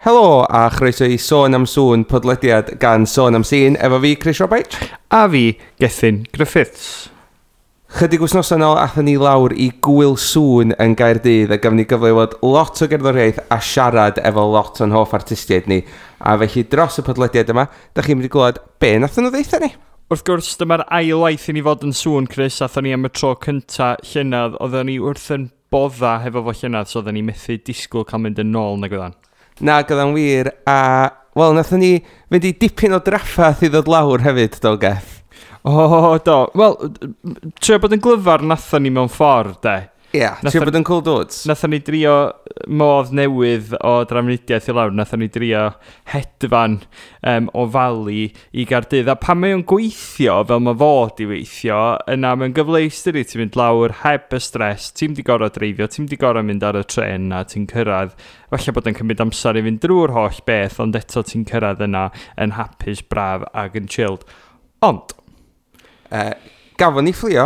Helo a chroeso i Sôn am Sŵn, podlediad gan Sôn am Sîn, efo fi, Chris Roberts. A fi, Gethin Griffiths. Chydig wythnosau nôl, athon ni lawr i Gwyl Sŵn yn Gaerdydd a gafon ni gyfle i weld lot o gerddoriaeth a siarad efo lot o'n hoff artistiaid ni. A felly dros y podlediad yma, da chi'n mynd i glywed be nathon nhw ddeutha ni. Wrth gwrs, dyma'r ail waith i ni fod yn Sŵn, Chris. Athon ni am y tro cynta llynedd. Oedden ni wrth yn bodda hefo fo llynedd, so oedden ni methu disgwyl cael mynd yn ôl nag oedden. Na, gyda'n wir, a, wel, nathon ni fynd i dipyn o draffath i ddod lawr hefyd, do, Geth? O, do. Wel, trio bod yn glyfar nathon ni mewn ffordd, de. Ie, yeah, trio bod yn cool dudes. Nathon ni drio modd newydd o drafnidiaeth i lawr. Nathon ni drio hedfan o Fali i Gaerdydd. A pan mae o'n gweithio, fel mae fod i weithio, yna mae'n gyfleus dydi, ti'n mynd lawr heb y stres, ti'n di gorfod dreifio, ti'n di gorfod mynd ar y tren na ti'n cyrraedd. Falle bod yn cymryd amser i fynd drwy'r holl beth, ond eto ti'n cyrraedd yna yn hapus, braf ac yn chilled. Ond Gafon ni fflio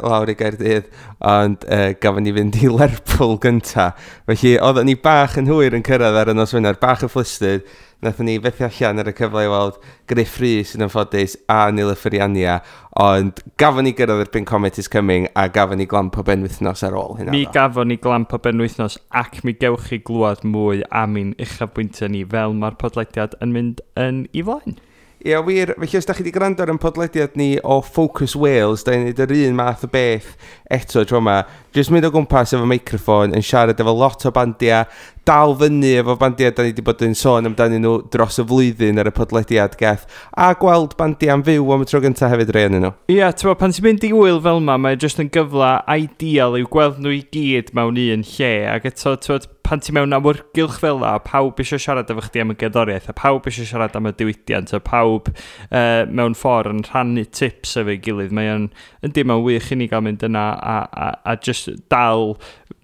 lawr i Gaerdydd, ond gafon ni fynd i Lerpwl gynta. Felly oedden ni bach yn hwyr yn cyrraedd ar y nos Wener, bach yn flustered. Nathon ni fethu allan ar y cyfle i weld Gruff Rhys yn anffodus a Nilüfer Yanya, ond gafon ni gyrraedd erbyn Comet is Coming a gafon ni glamp o benwythnos ar ôl hynna. Mi gafon ni glamp o benwythnos ac mi gewch chi glwad mwy am ein uchafbwyntiau ni fel mae'r podlediad yn mynd yn ei flaen. Ie, wir, felly os da chi wedi gwrando ar ein podlediad ni o Focus Wales, da ni'n neud yr un math o beth eto tro yma. Jyst mynd o gwmpas efo meicroffon, yn siarad efo lot o bandiau, dal fyny efo bandiau da ni wedi bod yn sôn amdanyn nhw dros y flwyddyn ar y podlediad, Geth, a gweld bandiau am fyw am y tro gyntaf hefyd rei ohonyn nhw. Ie, yeah, pan ti'n mynd i wyl fel yma, mae jyst yn gyfle ideal i'w gweld nhw i gyd mewn un lle, ac eto, t'wod, pan ti mewn awyrgylch fel la, pawb eisiau siarad efo chdi am y gerddoriaeth, a pawb eisiau siarad am y diwydiant, a pawb mewn ffordd yn rhannu tips efo'i gilydd. Mae o'n, yndi, mae'n wych i ni gael mynd yna a just dal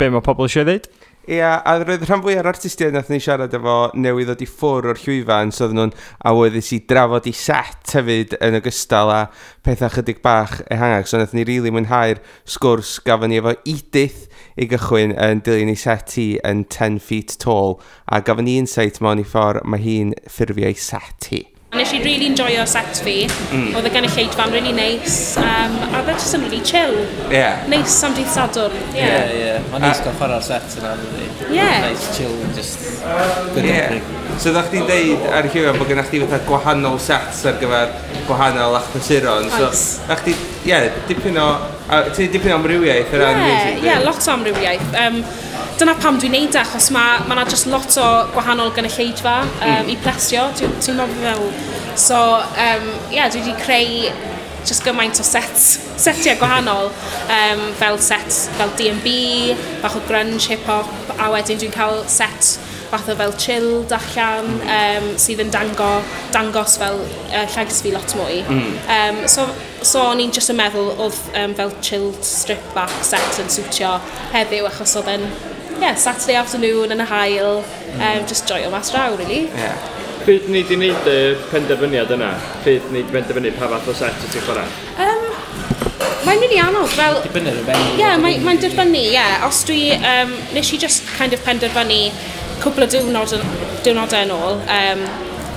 be mae pobl eisiau ddeud. Ie, a roedd rhan fwyaf o'r artistiaid nath ni siarad efo newydd ddod i ffwr o'r llwyfan, so oedden nhw'n awyddus i drafod i set hefyd yn ogystal â pethau chydig bach ehangach. So nath ni rili really mwynhau'r sgwrs gafon ni efo Edith i gychwyn yn dilyn ei set hi yn 10 Feet Tall, a gafon ni insight mewn i ffordd mae hi'n ffurfio ei set hi. Nes i really enjoyo set fi. Oedd y gynulleidfa'n really nice. A oedd e just yn really chill. Nice am dydd Sadwrn. Yeah. Yeah. Mae'n neis gael chwarae'r set yna, dydi? Yeah. Nice, chill, just good opening. So ddech chdi'n deud ar y llwyfan bod gennych chdi fatha gwahanol sets ar gyfer gwahanol achlysuron. So, Oes. ddech chdi, ie, dipyn o, a ti'n dipyn o amrywiaeth o ran Yeah, music, yeah, dwi? Lot o amrywiaeth. Dyna pam dwi'n neud e, achos mae ma 'na just lot o gwahanol gynulleidfa i plesio, dwi'n meddwl fel. So, yeah, dwi wedi creu just gymaint o setiau gwahanol, fel set fel D&B, bach o grunge, hip-hop, a wedyn dwi'n cael set fath o fel chilled allan, sydd yn dangos fel llais fi lot mwy. So o'n i'n just yn meddwl oedd fel chilled strip back set yn siwtio heddiw, achos oedd e'n, yeah, Saturday afternoon yn y haul, just joio mas draw, really. Pryd ni di wneud y penderfyniad yna? Pryd ni di penderfynu pa fath o set wyt ti'n chwarae? Mae'n really anodd, fel Dibynnu ar y venue. Ie, yeah, mae'n dibynnu, ie. Yeah. Os dwi, nes i just kind of penderfynu cwpl o diwrnodau yn ôl,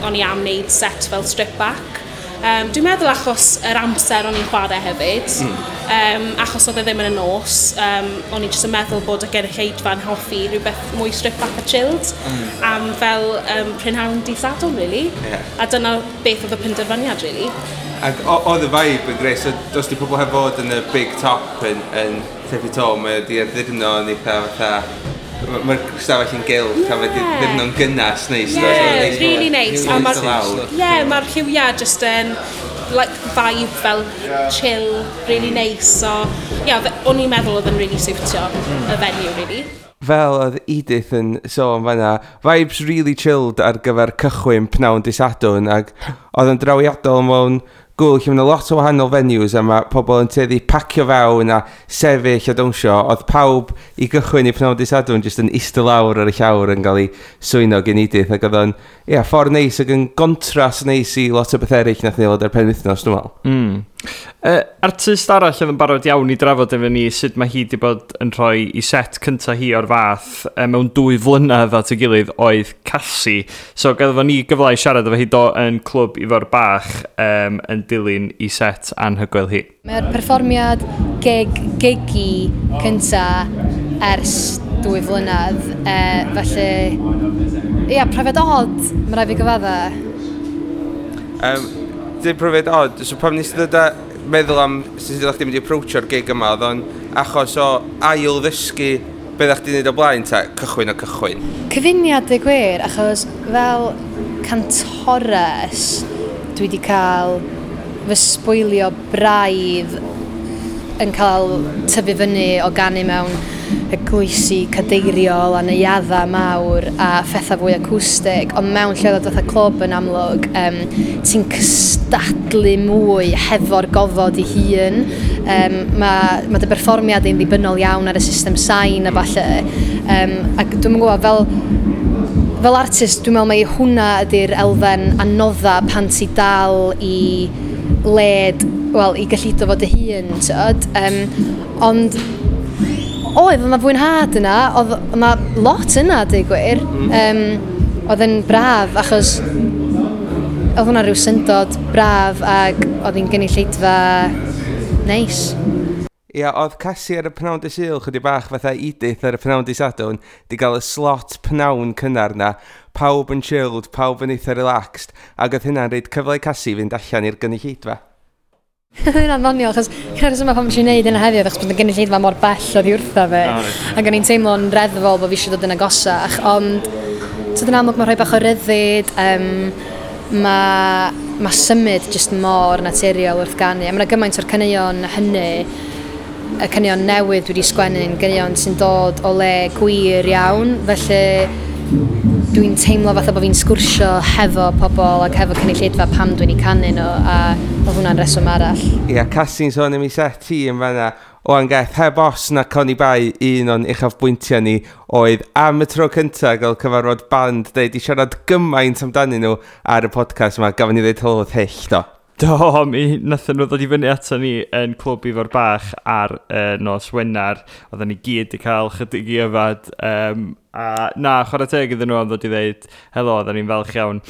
o'n i am wneud set fel strip back. Dwi'n meddwl achos yr amser o'n i'n chwarae hefyd, achos oedd e ddim yn y nos, o'n i jyst yn meddwl bod y gynulleidfa'n hoffi rhywbeth mwy strip back a chilled, am fel prynhawn dydd Sadwrn, really. A dyna beth oedd y penderfyniad, really. Ac oedd y vibe yn greu, so dos di pobl heb fod yn y big top yn Ten Feet Tall, mae wedi addurno yn eitha fatha, mae'r stafell yn gylch, a mae wedi addurno'n gynnas neis. Yeah, do, so neis really nice. A neis ma'r o lawr. Yeah, mae'r lliwiau just yn like, vibe fel chill, really nice. So, yeah, o'n i'n meddwl oedd yn really siwtio y venue, really. Fel oedd Edith yn sôn fanna, vibes really chilled ar gyfer cychwyn pnawn dydd Sadwrn, ac oedd yn drawiadol mewn gwyl lle mae 'na lot o wahanol venues a mae pobl yn tueddu pacio fewn a sefyll a dawnsio. Oedd pawb i gychwyn i pnawn dydd Sadwrn jyst yn eistedd lawr ar y llawr yn cael ei swyno gen Edith, ac oedd o'n, ie, ffordd neis ac yn gontrast neis i lot o beth eraill nath ni weld ar penwythnos, dwi'n meddwl. Artist arall oedd yn barod iawn i drafod efo ni sut mae hi wedi bod yn rhoi i set cyntaf hi o'r fath mewn 2 flynedd at ei gilydd oedd Casi. So gafodd ni gyfle i siarad efo hi do yn Clwb Ifor Bach yn dilyn i set anhygoel hi. Mae'r perfformiad gig, gigi cynta ers 2 flynedd, felly, ia, profiad od, mae rhaid fi gyfadda. Dim profiad od, so pam nes i ddod â meddwl am sut ydych chi'n mynd i approachio'r gig yma, oedd o'n achos o ail ddysgu beth ydych chi'n neud o blaen, ta cychwyn o cychwyn? Cyfuniad y gwir, achos fel cantores, dwi wedi cael fy sbwylio braidd yn cael tyfu fyny o ganu mewn eglwysi cadeiriol a neuaddau mawr a phethau fwy acwstig, ond mewn lleoliad fatha clwb yn amlwg, ti'n cystadlu mwy hefo'r gofod i hun. Mae dy berfformiad i'n ddibynnol iawn ar y system sain a falle. Ac dwi'n gwybod, fel artist, dwi'n meddwl mai hwnna ydy'r elfen anodda pan ti dal i led, wel, i gyllido fo dy hun, tyd. Ond oedd yna fwynhad yna, oedd yna lot yna, dweud gwir. Oedd yn braf, achos oedd hwnna rhyw syndod braf ac oedd hi'n gynulleidfa neis. Ia, oedd Casi ar y pnawn dy Sul chydig bach fatha Edith ar y pnawn dy Sadwrn, di gael y slot pnawn cynnar na, pawb yn chilled, pawb yn eitha relaxed, ac oedd hynna'n rhoid cyfle i Casi fynd allan i'r gynulleidfa. Hynna'n ddoniol, achos gyda'r rheswm pam nes i wneud hynna heddiw, achos bod y gynulleidfa mor bell oddi wrtha fi. O, reit. Ac o'n i'n teimlo'n reddfol bod fi eisiau dod yn agosach, ond tyd yn amlwg mae rhoi bach o ryddid, mae symud jyst mor naturiol wrth ganu. A mae yna gymaint o'r caneuon hynny, y caneuon newydd dwi wedi sgwennu'n ganeuon sy'n dod o le gwir iawn, felly dwi'n teimlo fatha bod fi'n sgwrsio hefo pobl ac hefo cynulleidfa pam dwi'n eu canu nhw, a oedd hwnna'n reswm arall. Ia, Casi'n sôn am ei set hi yn fanna. Oan Geth, heb os na Connie Bai, un o'n uchafbwyntiau ni oedd am y tro cyntaf gael cyfarfod band, dweud i siarad gymaint amdanyn nhw ar y podcast yma, gafon ni ddeud helo wrth Hyll, do. Do, mi nathon nhw ddod i fyny ato ni yn Clwb Ifor Bach ar nos Wener. Oedden ni gyd i cael chydig i yfad. A na, chwarae teg iddyn nhw am ddod i ddeud helo, oedden ni'n falch iawn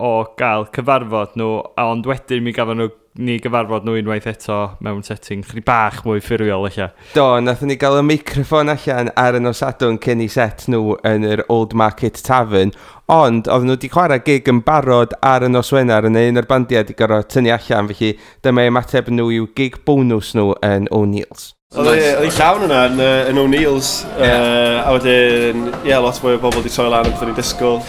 o gael cyfarfod nhw, ond wedyn mi gafon nhw ni gyfarfod nhw unwaith eto mewn setting chydig bach mwy ffurfiol eich. Do, nathon ni gael y meicroffon allan ar y nos Sadwrn cyn i set nhw yn yr Old Market Tavern, ond oedden nhw wedi chwarae gig yn barod ar y nos Wener yn un o'r bandiau wedi gorfod tynnu allan, felly dyma ymateb nhw i'w gig bonus nhw yn O'Neill's. Oedd hi llawn yna yn O'Neill's, a wedyn, ie, yeah, lot mwy o bobl wedi troi lan yn beth o'n i'n disgwyl.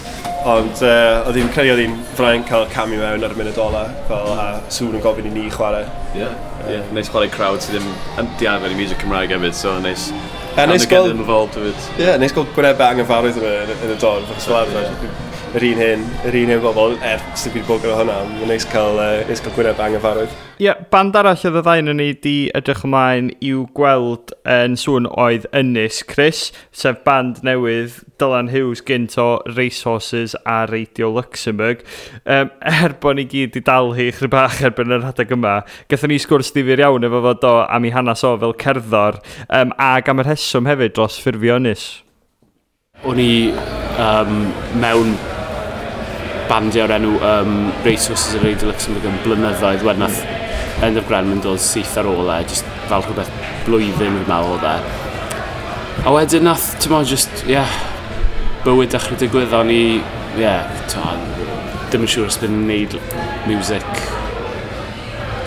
Ond oedd hi'n credu oedd hi'n fraint cael camu mewn ar y munud ola, fel, a Sŵn yn gofyn i ni chwarae. Ie, yeah. Neis chwarae crowd sydd ddim yn di arfer i music Cymraeg hefyd, so neis. A neis get gweld them involved hefyd. Ie, yeah, neis gweld gwynebau anghyfarwydd yn y dorf, achos fel arfer, yr un hen bobl, er sydd wedi bod gyda hwnna, mae'n neis cael gwynebau anghyfarwydd. Ie, yeah, band arall oedd y ddau yn ni di edrych ymlaen i'w gweld yn Sŵn oedd Ynys Chris, sef band newydd Dylan Hughes gynt o Racehorses a Radio Luxembourg. Er bod ni gyd i dal hi chydig bach erbyn yr adeg yma, gathon ni sgwrs difyr iawn efo fo do am ei hanes o fel cerddor, ac am y rheswm hefyd dros ffurfio Ynys. O'n i mewn bandiau o'r enw Racehorses a Radio Luxembourg yn blynyddoedd wedyn nath Endaf Grenman yn dod syth ar ôl e, just fel rhywbeth blwyddyn fi'n meddwl oedd e. A wedyn nath, ti'n meddwl, just, ie, yeah, bywyd dechrau digwydd, o'n i, ie, yeah, ddim yn siŵr os bydd yn gwneud music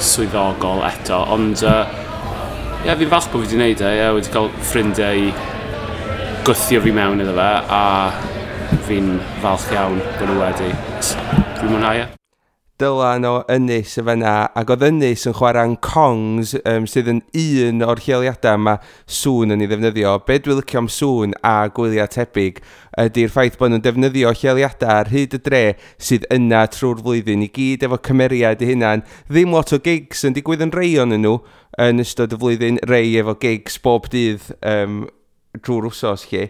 swyddogol eto, ond ie, yeah, fi'n falch bod fi wedi gwneud e, ie, yeah, wedi cael ffrindiau i gwthio fi mewn iddo fe, a fi'n falch iawn bod nhw wedi. Dwi'n mwynhau e. Dylan o Ynys y fanna, ac oedd Ynys yn chwarae'n Kongs, sydd yn un o'r lleoliadau mae Sŵn yn ei ddefnyddio. Be dwi'n licio am Sŵn a gwyliau tebyg ydy'r ffaith bod nhw'n defnyddio lleoliadau ar hyd y dre sydd yna trwy'r flwyddyn i gyd efo cymeriad eu hunan. Ddim lot o gigs yn digwydd yn rei o'n nhw yn ystod y flwyddyn, rei efo gigs bob dydd drwy'r wsos lle.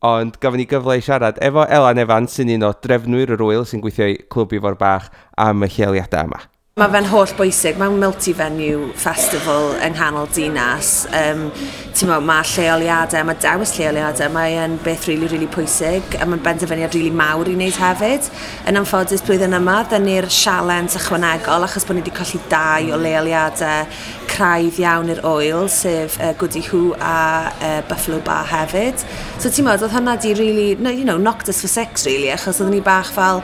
Ond gafon ni gyfle i siarad efo Elan Evans sy'n un o drefnwyr yr wyl sy'n gweithio i Clwb Ifor Bach am y lleoliadau yma. Mae fe'n holl bwysig, mae'n multi-venue festival yng nghanol dinas. Mae lleoliadau, mae dewis lleoliadau, mae'n beth really, really pwysig a mae'n benderfyniad really mawr i wneud hefyd. Yn anffodus blwyddyn yma, dyn ni'r sialens ychwanegol achos bod ni wedi colli dau o leoliadau craidd iawn i'r ŵyl, sef Gwdihŵ a Buffalo Bar hefyd. So ti'n meddwl, oedd hwnna di really, no, knocked us for six really, achos oedden ni bach fel,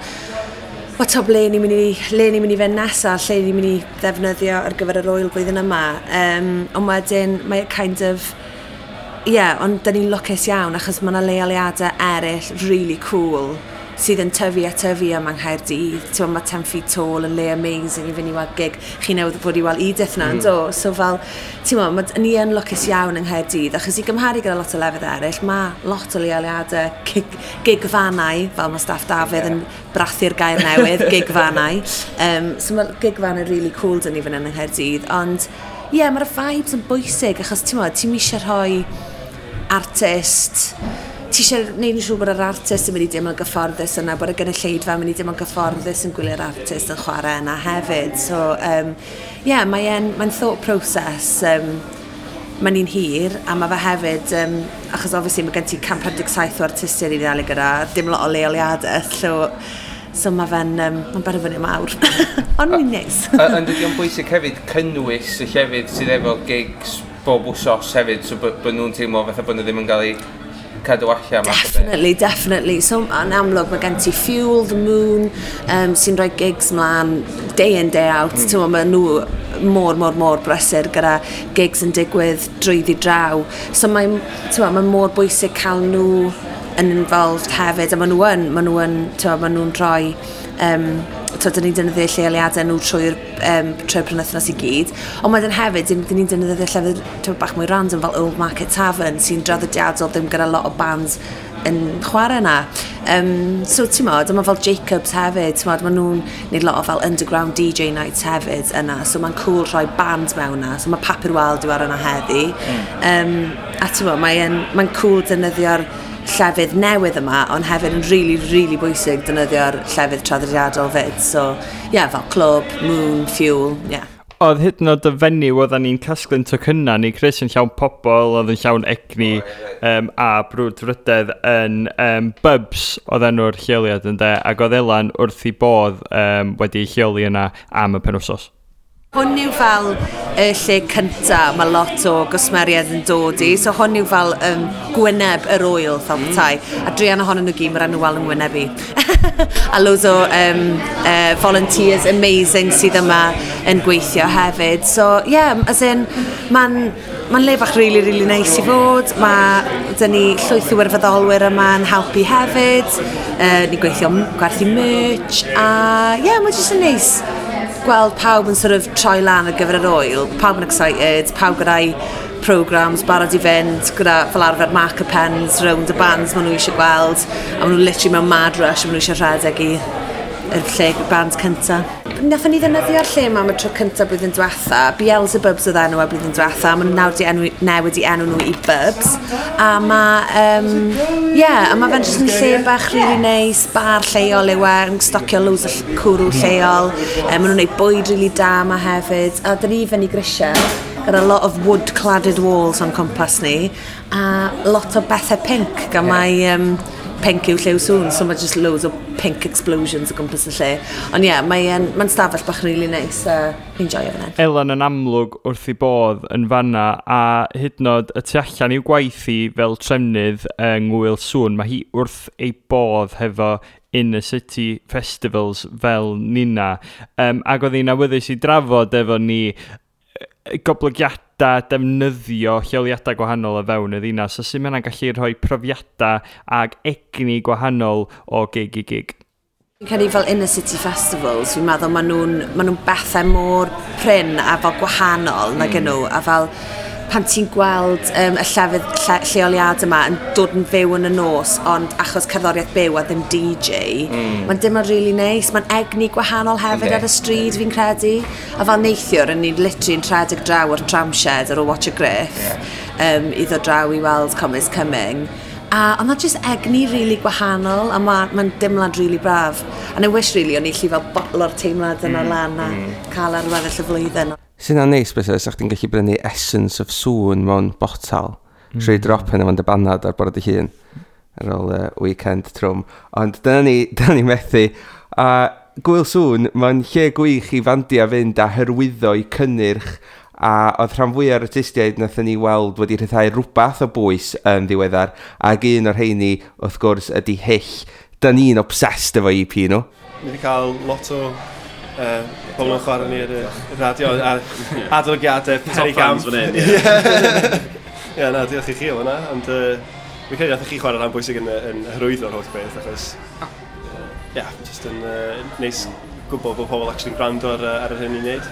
wel, to ble ni'n mynd i, le ni'n mynd i fynd nesaf, lle ni'n mynd i ddefnyddio ar gyfer yr ŵyl blwyddyn yma. Ond wedyn, mae kind of, yeah, ond dyn ni'n lwcus iawn achos mae yna leoliadau eraill really cool sydd yn tyfu a tyfu yma yng Nghaerdydd. Ti'n mae 10 Feet Tall yn le amazing i fynd i weld gig. Chi newydd fod i weld Edith na, mm. Do? So fel, ti'n ma, ni yn lwcus iawn yng Nghaerdydd, achos i gymharu gyda lot o lefydd eraill, mae lot o leoliadau gigfannau, fel mae staff Dafydd yn brathu'r gair newydd, gigfannau. So mae gigfannau really cool dyn ni fan hyn yng Nghaerdydd, ond ie, yeah, mae'r vibes yn bwysig, achos ti'n ti'n eisiau rhoi artist, ti eisiau gwneud yn siŵr bod yr artist yn mynd i deimlo'n gyfforddus yna, bod y gynulleidfa yn mynd i deimlo'n gyfforddus yn gwylio'r artist yn chwarae yna hefyd. So, yeah, mae'n mae thought process, mae'n un hir, a mae fe hefyd, achos obviously mae gen ti 157 o artistiaid i ddal gyda, dim lot o leoliadau, so mae fe'n mae'n benderfyniad mawr. Ond mae'n neis. Ond ydy o'n bwysig hefyd cynnwys y llefydd sydd efo gigs bob wsos hefyd, so bod nhw'n teimlo fatha bod nhw ddim yn cael eu cadw allan. Definitely, definitely. So, yn amlwg, mae gen ti Fuel, The Moon, sy'n rhoi gigs mlaen day in, day out. Mm. Mae nhw mor, mor, mor brysur gyda gigs yn digwydd drwyddi draw. So mae'n mae mor bwysig cael nhw yn involved hefyd, a maen nhw yn, maen nhw yn, maen nhw'n rhoi, dyn ni'n defnyddio lleoliadau nhw trwy'r penwythnos i gyd. Ond wedyn hefyd, dyn ni'n defnyddio llefydd bach mwy random fel Old Market Tavern, sy'n draddodiadol ddim gyda lot o bands yn chwarae yna. So ti'n modd, mae fel Jacobs hefyd, ti'n modd, maen nhw'n neud lot o fel underground DJ nights hefyd yna, so mae'n cool rhoi band mewn yna, so mae Papur Wal di ar yna heddi. A ti'n modd, mae'n mae cool defnyddio'r llefydd newydd yma, ond hefyd yn really, really bwysig defnyddio'r llefydd traddodiadol fyd. So, yeah, fel Clwb, Moon, Fuel, yeah. Oedd hyd yn oed y fenyw oedden ni'n casglu'n tocynnau ni, Chris, yn llawn pobl, oedd yn llawn egni a brwdfrydedd yn Bubs oedd enw'r lleoliad yn de, ac oedd Elan wrth ei bodd wedi ei lleoli yna am y penwsos. Hwn yw fel y lle cynta mae lot o gwsmeriaid yn dod i, so hwn yw fel gwyneb yr ŵyl fel petai. A druan ohonyn nhw gyd, mae'r enw wal yn ngwyneb i. A loads o volunteers amazing sydd yma yn gweithio hefyd. So, yeah, as in, mae'n ma le bach really, really nice i fod. Mae dyn ni llwyth o wirfoddolwyr yma yn helpu hefyd. Ni'n gweithio gwerthu merch. A, yeah, mae'n jyst yn neis gweld pawb yn sort of troi lan ar gyfer yr ŵyl, pawb yn excited, pawb gyda'i programs barod i fynd, gyda fel arfer marker pens round y bands maen nhw eisiau gweld, a maen nhw literally mewn mad rush, a maen nhw eisiau rhedeg i yr lle band cynta. Nathon ni ddefnyddio'r lle yma am y tro cynta blwyddyn diwetha. Beelzebubs oedd enw e blwyddyn diwetha. Maen nhw nawr di enw, newid i enw nhw i Bubs. A mae, yeah, a mae fe'n jyst yn lle bach really nice, bar lleol yw e, yn stocio loads o cwrw lleol. Maen nhw'n gwneud bwyd really da yma hefyd. A dyn ni fyny grisiau gyda lot of wood-cladded walls o'n cwmpas ni. A lot o bethau pink, gan mai pink yw lliw Sŵn, so mae just loads o pink explosions o gwmpas y lle. Ond ie, yeah, mae'n mae stafell bach really nice, a fi'n joio fan hyn. Elan yn amlwg wrth ei bodd yn fanna, a hyd yn oed y tu allan i'w gwaith hi fel trefnydd yng Ngŵyl Sŵn, mae hi wrth ei bodd hefo Inner City Festivals fel nina. Ac oedd hi'n awyddus i drafod efo ni goblygiadau defnyddio lleoliadau gwahanol o fewn y ddinas, a sut mae hynna'n gallu rhoi profiadau ag egni gwahanol o gig i gig. Fi'n credu fel Inner City Festivals, fi'n meddwl maen nhw bethau mor prin a fel gwahanol nag nhw, a fel pan ti'n gweld y llefydd lleoliad yma yn dod yn fyw yn y nos, ond achos cerddoriaeth byw a ddim DJ, mae'n dim really nice. Mae'n egni gwahanol hefyd ar y stryd, fi'n credu. A fel neithiwr, yn ni'n literally yn rhedeg draw o'r Tramshed ar ôl Watch a Griff, i ddod draw i weld Comet Coming. A ond na just egni really gwahanol, a mae'n ma dimlad really braf. And I wish really o'n i allu fel botlo'r teimlad yna lan a cael ar weddill y flwyddyn. Sy'n neis beth sa chdi'n gallu brynu Essence of Sŵn mewn botal. Trwy drop yna fo'n dy banad ar bore dy hun ar ôl weekend trwm. Ond dyna ni methu. A Gwyl Sŵn, mae'n lle gwych i fandia fynd a hyrwyddo i cynnyrch, a oedd rhan fwyaf o'r artistiaid nathon ni weld wedi rhyddhau rhywbeth o bwys yn ddiweddar, ac un o'r rheini, wrth gwrs, ydy Hyll. Da ni'n obsessed efo EP nhw. Ni wedi cael lot o pobl yn chwarae ni ar y radio a adolygiadau Top penigamp. fans fan hyn, ie. Ie, na, diolch i chi am hwnna, ond fi'n credu nath chi chwarae rhan bwysig yn hyrwyddo'r holl beth, achos ie, yeah, just yn neis gwybod bod pobl actually'n gwrando ar yr hyn ni'n neud.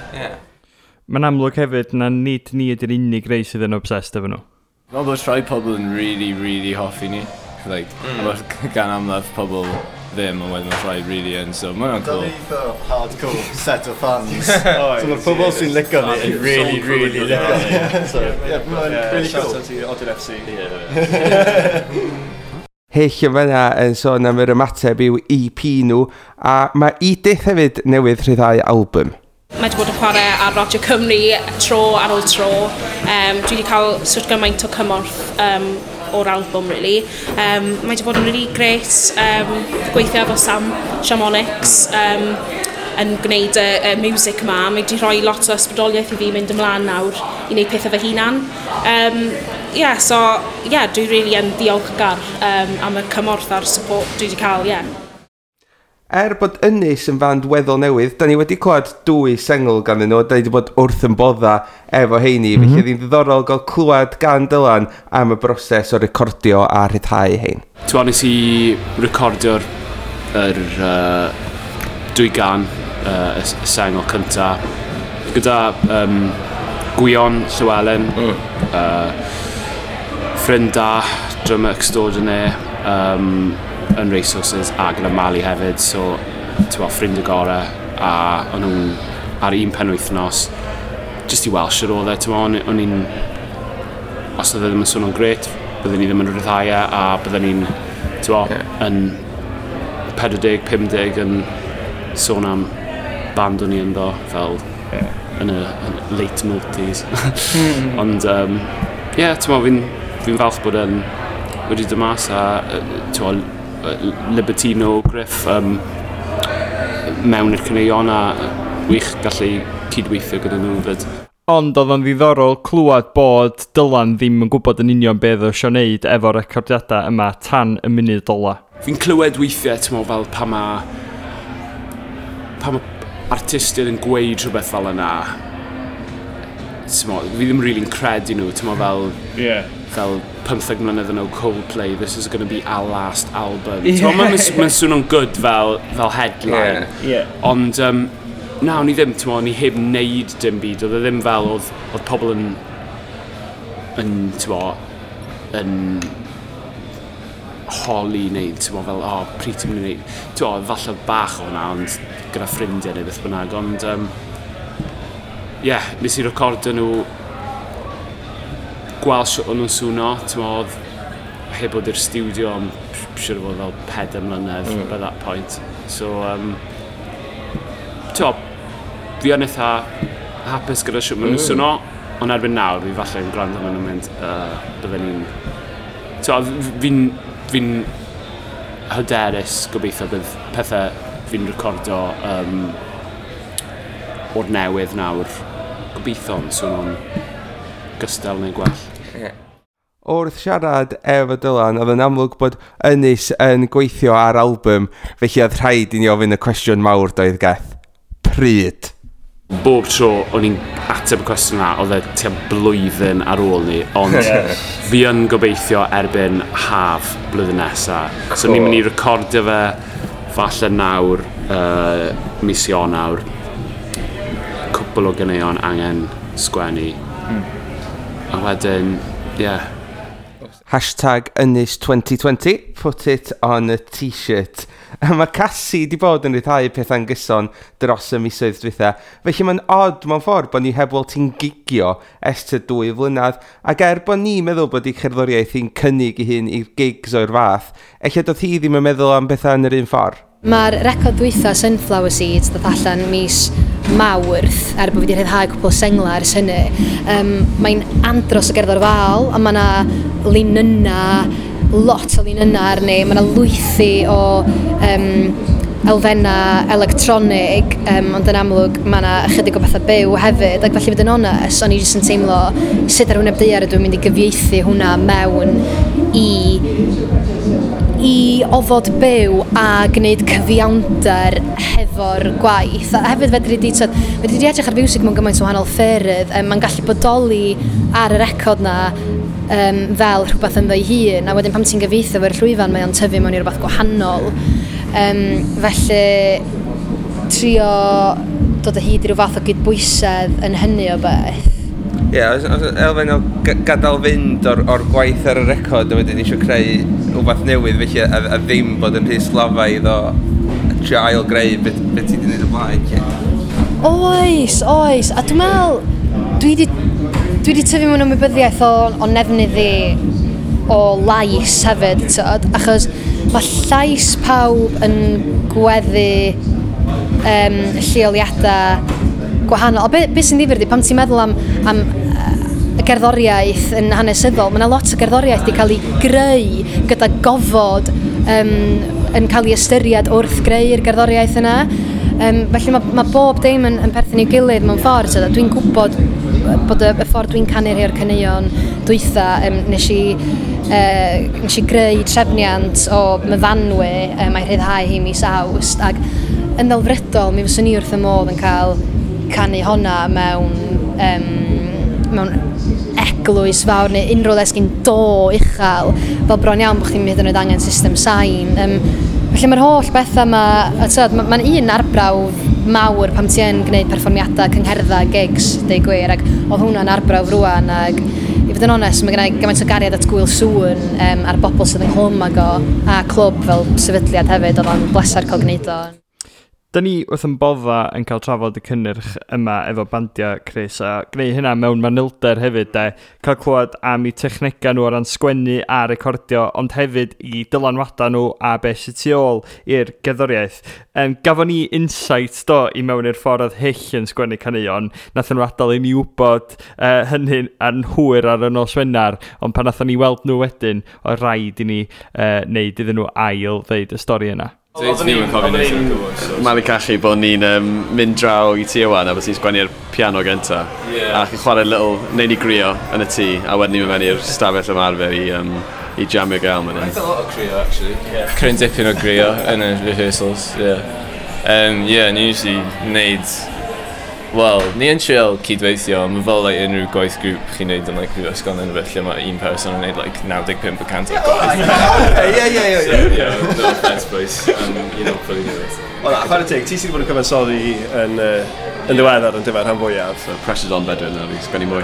Mae'n amlwg hefyd na nid ni ydy'r unig rei sydd yn obsessed efo nhw. Fel bod rhai pobl yn really, really hoffi ni. Like, mm. Gan amlaf pobl ddim, ond wedyn mae rhai really yn, so mae hwnna'n Da cool. ni eitha hardcore set o fans. Oes, So mae'r pobl sy'n licio ni yn really, really licio ni. So, yeah, mae'n really shout cool. out i Odin FC. Hyll yn fanna yn sôn am yr ymateb i'w EP nhw, a mae Edith hefyd newydd rhyddhau album. Mae wedi bod yn chwarae ar Radio Cymru tro ar ôl tro. Dwi wedi cael sort gymaint o cymorth o'r album, really. Mae wedi bod yn really great gweithio efo Sam Shamonics yn gwneud y music ma. Mae wedi rhoi lot o ysbrydoliaeth i fi mynd ymlaen nawr i wneud pethau fy hunan. Yeah, so, yeah, dwi really yn diolchgar am y cymorth a'r support dwi wedi cael, yeah. Er bod Ynys yn fand weddol newydd, da ni wedi clywed dwy sengl ganddyn nhw, da ni wedi bod wrth yn bodda efo heini, felly oedd hi'n ddiddorol gael clywed gan Dylan am y broses o recordio a rhyddhau hein. Ti'n nes i recordio'r yr, dwy gan, y sengl cynta, gyda Gwion Llywelyn, ffrind da, drummer extraordinaire, yn Racehorses, a gyda Mali hefyd, so ti'n ffrind y gorau, a o'n nhw'n ar un penwythnos, just i weld sut oedd e, ti'n o'n i'n, os oedd e ddim yn swnio'n grêt, byddwn ni ddim yn rhyddhau e, a byddwn ni'n, ti'n yn 40, 50 yn sôn am band o'n i ynddo, fel yn y yn late multis. Ond, ie, yeah, ti'n fi'n falch bod yn wedi dod mas a, ti'n Libertino, Griff, mewn i'r caneuon a wych gallu cydweithio gyda nhw fyd. Ond oedd o'n ddiddorol clywed bod Dylan ddim yn gwybod yn union beth oedd eisiau wneud efo'r recordiadau yma tan y munud ola. Fi'n clywed weithiau, ti'n meddwl, fel pan ma artistiaid yn gweud rhywbeth fel yna, ti'n meddwl, fi ddim really'n credu nhw, ti'n meddwl, fel, fel 15 mlynedd yn ôl Coldplay, "This is going to be our last album." Yeah. Ti'n meddwl, mae'n swnio'n good fel headline. Ond, na, o'n i ddim, ti'n meddwl, o'n i heb wneud dim byd. Oedd e ddim fel, oedd pobl yn, ti'n meddwl, yn holi neu, ti'n meddwl, fel, "O, oh, pryd ti'n mynd i wneud?" Ti'n meddwl, falle bach o hwnna, ond gyda ffrindiau neu beth bynnag, ond, yeah, nes i recordio nhw, gweld sut o'n nhw'n swno, ti'n meddwl, oedd heb bod i'r studio am siŵr o fod fel 4 mlynedd by that point. So, ti'n meddwl, fi yn eitha hapus gyda sut maen nhw'n swno, ond erbyn nawr, fi falle yn gwrando maen nhw'n mynd, bydden ni'n... Ti'n fi'n hyderus gobeithio bydd pethau fi'n recordo o'r newydd nawr, gobeithio'n swnio'n gystal neu gwell. Wrth siarad efo Dylan, oedd yn amlwg bod Ynys yn gweithio ar album, felly oedd rhaid i ni ofyn y cwestiwn mawr doedd, Geth. Pryd? Bob tro o'n i'n ateb y cwestiwn yna, oedd e tua blwyddyn ar ôl ni, ond fi yn gobeithio erbyn haf blwyddyn nesa. So ni'n mynd i recordio fe falle nawr, mis Ionawr, cwpl o ganeuon angen sgwennu. A wedyn, ie. Yeah. #Ynys 2020, put it on a t-shirt. A mae Casi di bod yn rhyddhau pethau'n gyson dros y misoedd dwytha. Felly mae'n odd mewn ffordd bod ni heb weld ti'n gigio ers tua 2 flynedd. Ac er bod ni'n meddwl bod ei cherddoriaeth hi'n cynnig ei hun i'r gigs o'r fath, ella doedd hi ddim yn meddwl am bethau yn yr un ffordd. Mae'r record dwytha Sunflower Seeds ddoth allan mis Mawrth, er bod fi wedi rhyddhau cwpl o sengla ers hynny. Mae'n andros o gerddorfaol, a mae yna linynna, lot o linynna arni, mae yna lwythi o elfennau electronig, ond yn amlwg mae yna ychydig o bethau byw hefyd, ac felly fod yn onest, o'n i jyst yn teimlo sut ar wyneb daear ydw i'n mynd i gyfieithu hwnna mewn i ofod byw a gwneud cyfiawnder hefo'r gwaith. A hefyd fedri di, tyd, fedri di edrych ar fiwsig mewn gymaint o wahanol ffyrdd. Mae'n gallu bodoli ar y record na fel rhywbeth ynddo ei hun, a wedyn pan ti'n gyfieithu fo'r llwyfan mae o'n tyfu mewn i rhywbeth gwahanol. Felly trio dod o hyd i ryw fath o gydbwysedd yn hynny o beth. Ie, yeah, os elfen o gadael fynd o'r gwaith ar y record a wedyn eisiau creu rhywbeth newydd felly a ddim bod yn rhy slafaidd o trio ail greu beth ti wedi gwneud o blaen. Lle. Oes, oes. A dwi'n meddwl, dwi wedi tyfu mewn ymwybyddiaeth o nefnydd i o lais hefyd, tyd, achos mae llais pawb yn gweddu lleoliadau gwahanol. A be sy'n ddifyr ydi, pan ti'n meddwl am y gerddoriaeth yn hanesyddol, mae yna lot o gerddoriaeth wedi cael ei greu gyda gofod yn cael ei ystyried wrth greu'r gerddoriaeth yna. Felly mae bob dim yn perthyn i'w gilydd mewn ffordd. So, dwi'n gwybod bod y ffordd dwi'n canu rhai o'r caneuon dwytha, nes i greu trefniant o Myfanwy, mae rhyddhau hi mis Awst, ac yn ddelfrydol mi fyswn i wrth y modd yn cael canu honna mewn eglwys fawr neu unrhyw le sgyn do uchel, fel bron iawn bod chdi'n hyd yn oed angen system sain. Felly mae'r holl bethau yma, mae'n un arbrawf mawr pan ti yn gwneud perfformiadau, cyngherddau, gigs, deud gwir, ac oedd hwnna'n arbrawf rwan, ac i fod yn onest, mae gen i gymaint o gariad at Gŵyl Sŵn a'r bobl sydd ynghlwm ag o, a clwb fel sefydliad hefyd, oedd o'n bleser cael gwneud o. Da ni wrth yn bodda yn cael trafod y cynnyrch yma efo bandiau, Chris, a gwneud hynna mewn manylder hefyd, de. Cael clywed am eu technegau nhw o ran sgwennu a recordio, ond hefyd i dylanwadau nhw a beth sydd tu ôl i'r gerddoriaeth. Gafon ni insight do i mewn i'r ffordd oedd Hyll yn sgwennu caneuon. Nathon nhw adael i ni wybod hynny yn hwyr ar y nos Wener, ond pan nathon ni weld nhw wedyn, oedd rhaid i ni wneud iddyn nhw ail ddeud y stori yna. Malu cachu bod ni'n mynd draw i ti Iwan a bod ti'n sgwennu'r piano gynta. Yeah. A chi'n chwarae little, neu ni grio yn y tŷ, a wedyn ni'n mynd mewn i'r stafell ymarfer i jamio gael. Quite a lot o crio, actually. Yeah. Cryn dipyn o grio yn y rehearsals, yeah. Yeah, ni usually wneud... Wel, ni yn trial cydweithio, ond mae fel like, unrhyw gwaith grŵp chi'n neud yn like, prifysgol neu rhywbeth lle mae un person yn neud like, 95% o'r gwaith. Ie. So, yeah, no offence, boys. You know, fully do it. Wel, chwarae teg, ti sydd wedi bod yn cyfansoddi yn ddiweddar yn dyfer rhan fwyaf. So, pressure's on Bedwyn, na fi, sgwennu mwy.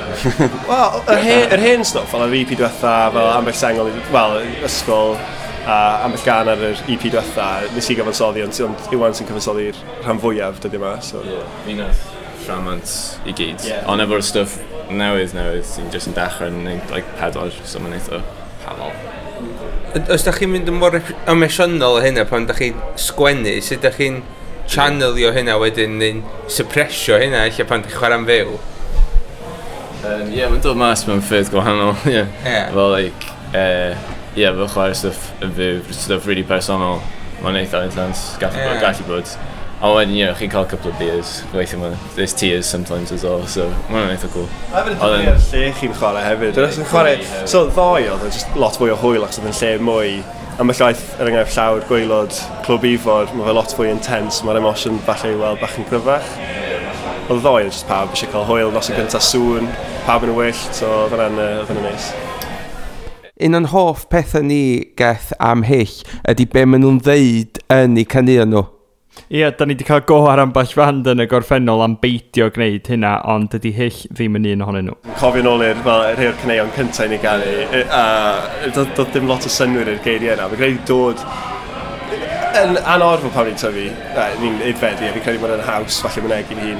Wel, yr hen stwff, fel yr EP diwetha, fel ambell sengl, wel, ysgol, a ambell gan ar yr EP diwetha, nes i gyfansoddi, ond Iwan sy'n cyfansoddi'r rhan fwyaf dyddi yma. So. Yeah, fi nath rhamant i gyd. Yeah. Ond efo'r stwff newydd sy'n jyst yn dechrau yn neud like, 4, so mae'n eitha hanol. Os da chi'n mynd yn mor emosiynol o hynna pan da chi'n sgwennu, sut da chi'n channelio hynna wedyn neu'n suppressio hynna lle pan da chi'n chwarae'n fyw? Yeah, mae'n dod mas mewn ffyrdd gwahanol. Yeah. Yeah. Fel, like, yeah, fel chwarae stwff yn fyw, stwff really personol, mae'n eitha intense, gallu bod. Ond wedyn, you know, chi'n cael couple of beers, weithio ma, there's tears sometimes as well, so mae'n eitha cool. A hefyd yn dibynnu ar lle chi'n chwarae hefyd. Dwi'n chwarae, so ddoe oedd yn just lot fwy o hwyl achos oedd yn lle mwy, ambell waith, er enghraifft llawr, gwaelod, Clwb Ifor, mae fe lot fwy intense, mae'r emosiwn falle i weld bach yn gryfach. Oedd ddoe oedd just pawb eisiau cael hwyl, nos yn gyntaf sŵn, pawb yn y wyllt, so oedd hwnna'n neis. Un o'n hoff pethau ni geth am Hyll ydy be maen nhw'n ddeud yn eu caneuon nhw. Ie, da ni wedi cael go ar ambell fand yn y gorffennol am beidio gwneud hynna, ond dydy Hyll ddim yn un ohonyn nhw. Cofio nôl i'r rhai o'r caneuon cyntaf i ni ganu, a doedd dim lot o synnwyr i'r geiriau yna. Mae'n credu dod Yn anorfod pan ni'n tyfu, ni'n aeddfedu, a fi'n credu bod yn haws, falle mynegi'n hun,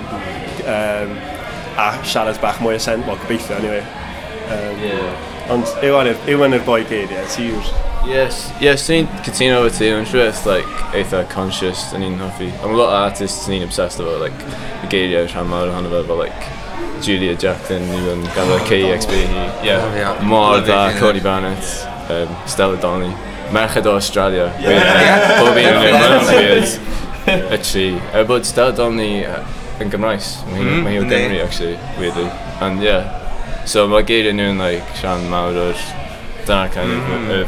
a siarad bach mwy o sen, well, gobeithio, anyway. Ond Iwan yw'r boi geiriau, ti yw'r... Yes, ni'n cytuno efo ti, mae'n siŵr it's like eitha conscious, da ni'n hoffi. Mae lot o artists ni'n obsessed efo, like, y geiriau rhan mawr ohono fe, fel like, Julia Jacklin, even ganddo KEXP hi. Yeah, mor dda, Courtney Barnett, Stella Donnelly. Merched o Australia. Bob un yn nhw, weird. Y tri. Er bod Stella Donnelly yn Gymraes. Mae hi o Gymru, actually, weirdly. And yeah. So mae geiriau nhw'n like, rhan mawr o'r... Dyna'r kind of y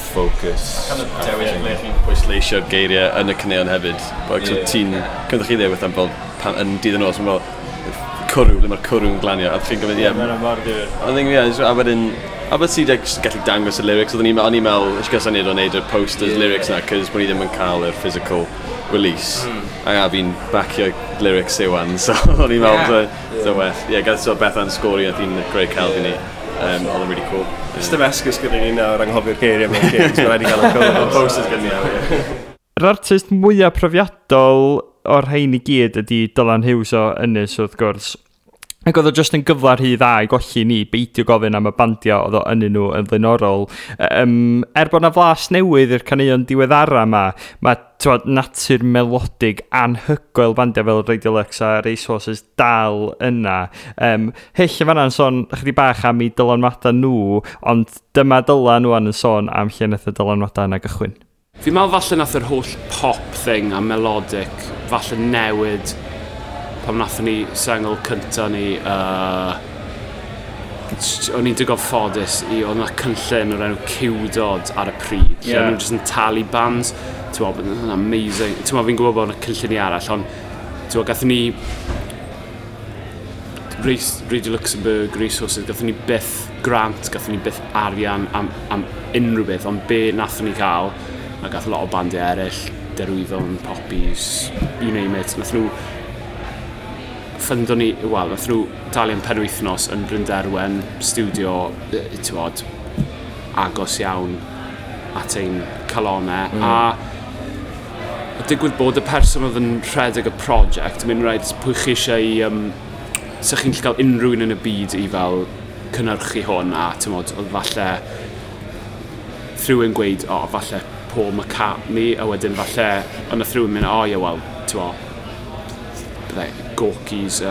focus. Kind of dewis ble chi'n pwysleisio'r geiriau yn y caneuon hefyd. Like, so ti'n... Cynnwch chi ddweud am fel pan, yn dydd y nos, mae'n fel cwrw, ble mae'r cwrw'n glanio, a chi'n gofyn, ie. Mae'n mor ddifyr. I think, yeah, a wedyn, a bod ti just gallu dangos y lyrics, oedden ni'n o'n i'n meddwl, eisiau gael syniad o wneud y posters lyrics na, cos bod ni ddim yn cael yr physical release. A fi'n bacio lyrics Iwan, so o'n i'n meddwl, so well. Yeah, gael so Bethan sgori, a hi'n greu celf i ni. Oedd yn really cool. Ys dim esgus gyda ni nawr anghofio'r geiriau mewn gigs, mae'n rhaid i gael y cwrw. Posters gyda ni nawr, ie. Yr artist mwyaf profiadol o'r rhain i gyd ydy Dylan Hughes o Ynys, wrth gwrs. Ac oedd o just yn gyfle rhy dda i golli ni beidio gofyn am y bandiau oedd o ynny nhw yn flaenorol. Er bod na flas newydd i'r caneuon diweddara yma, mae t'wod, natur melodig anhygoel bandiau fel Radio Lux a Racehorses dal yna. Hyll yn fanna'n sôn chydig bach am eu dylanwadau nhw, ond dyma Dylan wan yn sôn am lle nath y dylanwadau yna gychwyn. Fi'n meddwl falle nath yr holl pop thing a melodic falle newid pan nathon ni sengl cynta ni, o'n i'n digon ffodus i, oedd yna cynllun o'r enw Ciwdod ar y pryd, lle o'n nhw'n just yn talu bands, ti'n meddwl, bod yn amazing, ti'n meddwl, fi'n gwybod bod yna cynlluniau arall, ond ti'n meddwl, gathon ni Race, Radio Luxembourg, Racehorses, gathon ni byth grant, gathon ni byth arian am unrhyw beth, ond be nathon ni cael, a gath lot o bandiau eraill, Derwyddon, Poppies, you name it, nath nhw ffundo ni, wel, nath nhw dalu am penwythnos yn Brynderwen, studio, ti'n bod, agos iawn at ein calonau, a digwydd bod y person oedd yn rhedeg y prosiect, yn mynd rhaid pwy chi eisiau i, sa chi'n gallu cael unrhyw un yn y byd i fel cynhyrchu hwn, a ti'n modd, oedd falle rhywun gweud, o, oh, falle Paul McCartney, a wedyn falle, ond nath rhywun mynd, o, oh, ie, wel, ti'n mo, byddai Gorky's,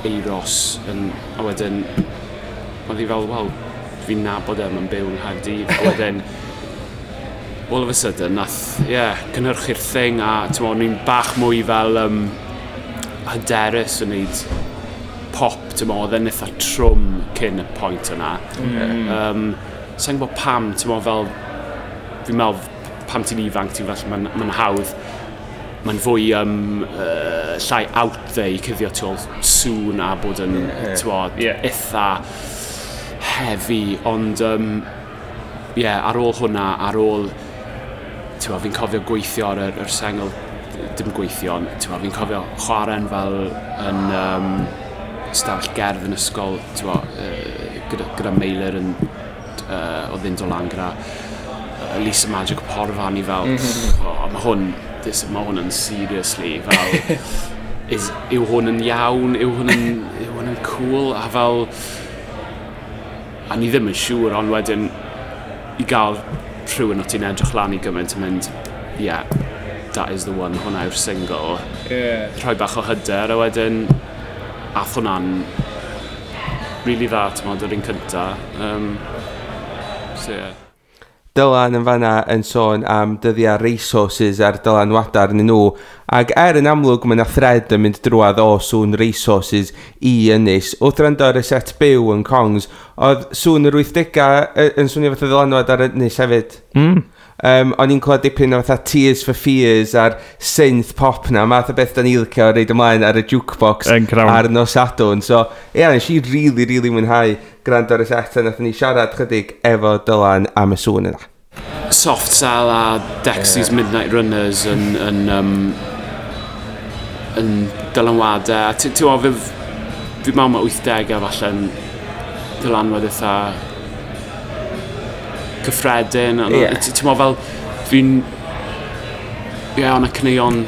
Euros, yn, a wedyn, oedd hi fel, wel, fi'n nabod e, mae'n byw yng Nghaerdydd, a wedyn, all of a sudden, nath, ie, yeah, cynhyrchu'r thing, a ti'n mo, o'n i'n bach mwy fel hyderus yn neud pop, ti'n mo, oedd e'n eitha trwm cyn y pwynt yna. Sa'n gwybod pam, ti'n mo, fel, fi'n meddwl, pam ti'n ifanc, ti'n falle, mae'n hawdd, mae'n fwy llai out there i cuddio tu ôl sŵn a bod yn, ti'n mo, eitha heavy, ond yeah, ar ôl hwnna, ar ôl, ti'n mo, fi'n cofio gweithio ar yr sengl, dim gweithio, ond ti'n mo, fi'n cofio chwarae'n fel yn stafell gerdd yn ysgol, ti'n mo, gyda Meilir yn, oedd yn dod lan gyda Lisa Magic Porfa, ni fel, oh, mae hwn yn seriously, fel, yw hwn yn iawn, yw hwn yn cool, a fel, a ni ddim yn siŵr, ond wedyn, i gael rhywun o ti'n edrych lan i gymaint yn mynd, yeah, that is the one, hwnna yw'r single. Rhoi bach o hyder, a wedyn, ath hwnna'n really dda, ti'n modd, yr un cynta. So, yeah. Dylan yn fanna yn sôn am dyddiau Racehorses a'r dylanwadau arnyn nhw. Ac er yn amlwg mae yna thread yn mynd drwadd o sŵn Racehorses i Ynys. Wrth rando ar y set byw yn Kongs, oedd sŵn yr 80au yn swnio fatha ddylanwad ar Ynys hefyd. O'n i'n clywed dipyn o fatha Tears for Fears a'r synth pop na, math o beth da ni licio reid ymlaen ar y jukebox Yn crawn. ar nos Sadwrn. So, ie, yeah, nes i really, really mwynhau gwrando ar y set a nathon ni siarad chydig efo Dylan am y sŵn yna. Soft Cell a Dexys Midnight Runners yn dylanwadau. A Ti'n gwybod, fi meddwl mae 80au falle yn dylanwad eitha cyffredin. Ond Ti'n meddwl fel, fi'n Ie, yeah, o'na caneuon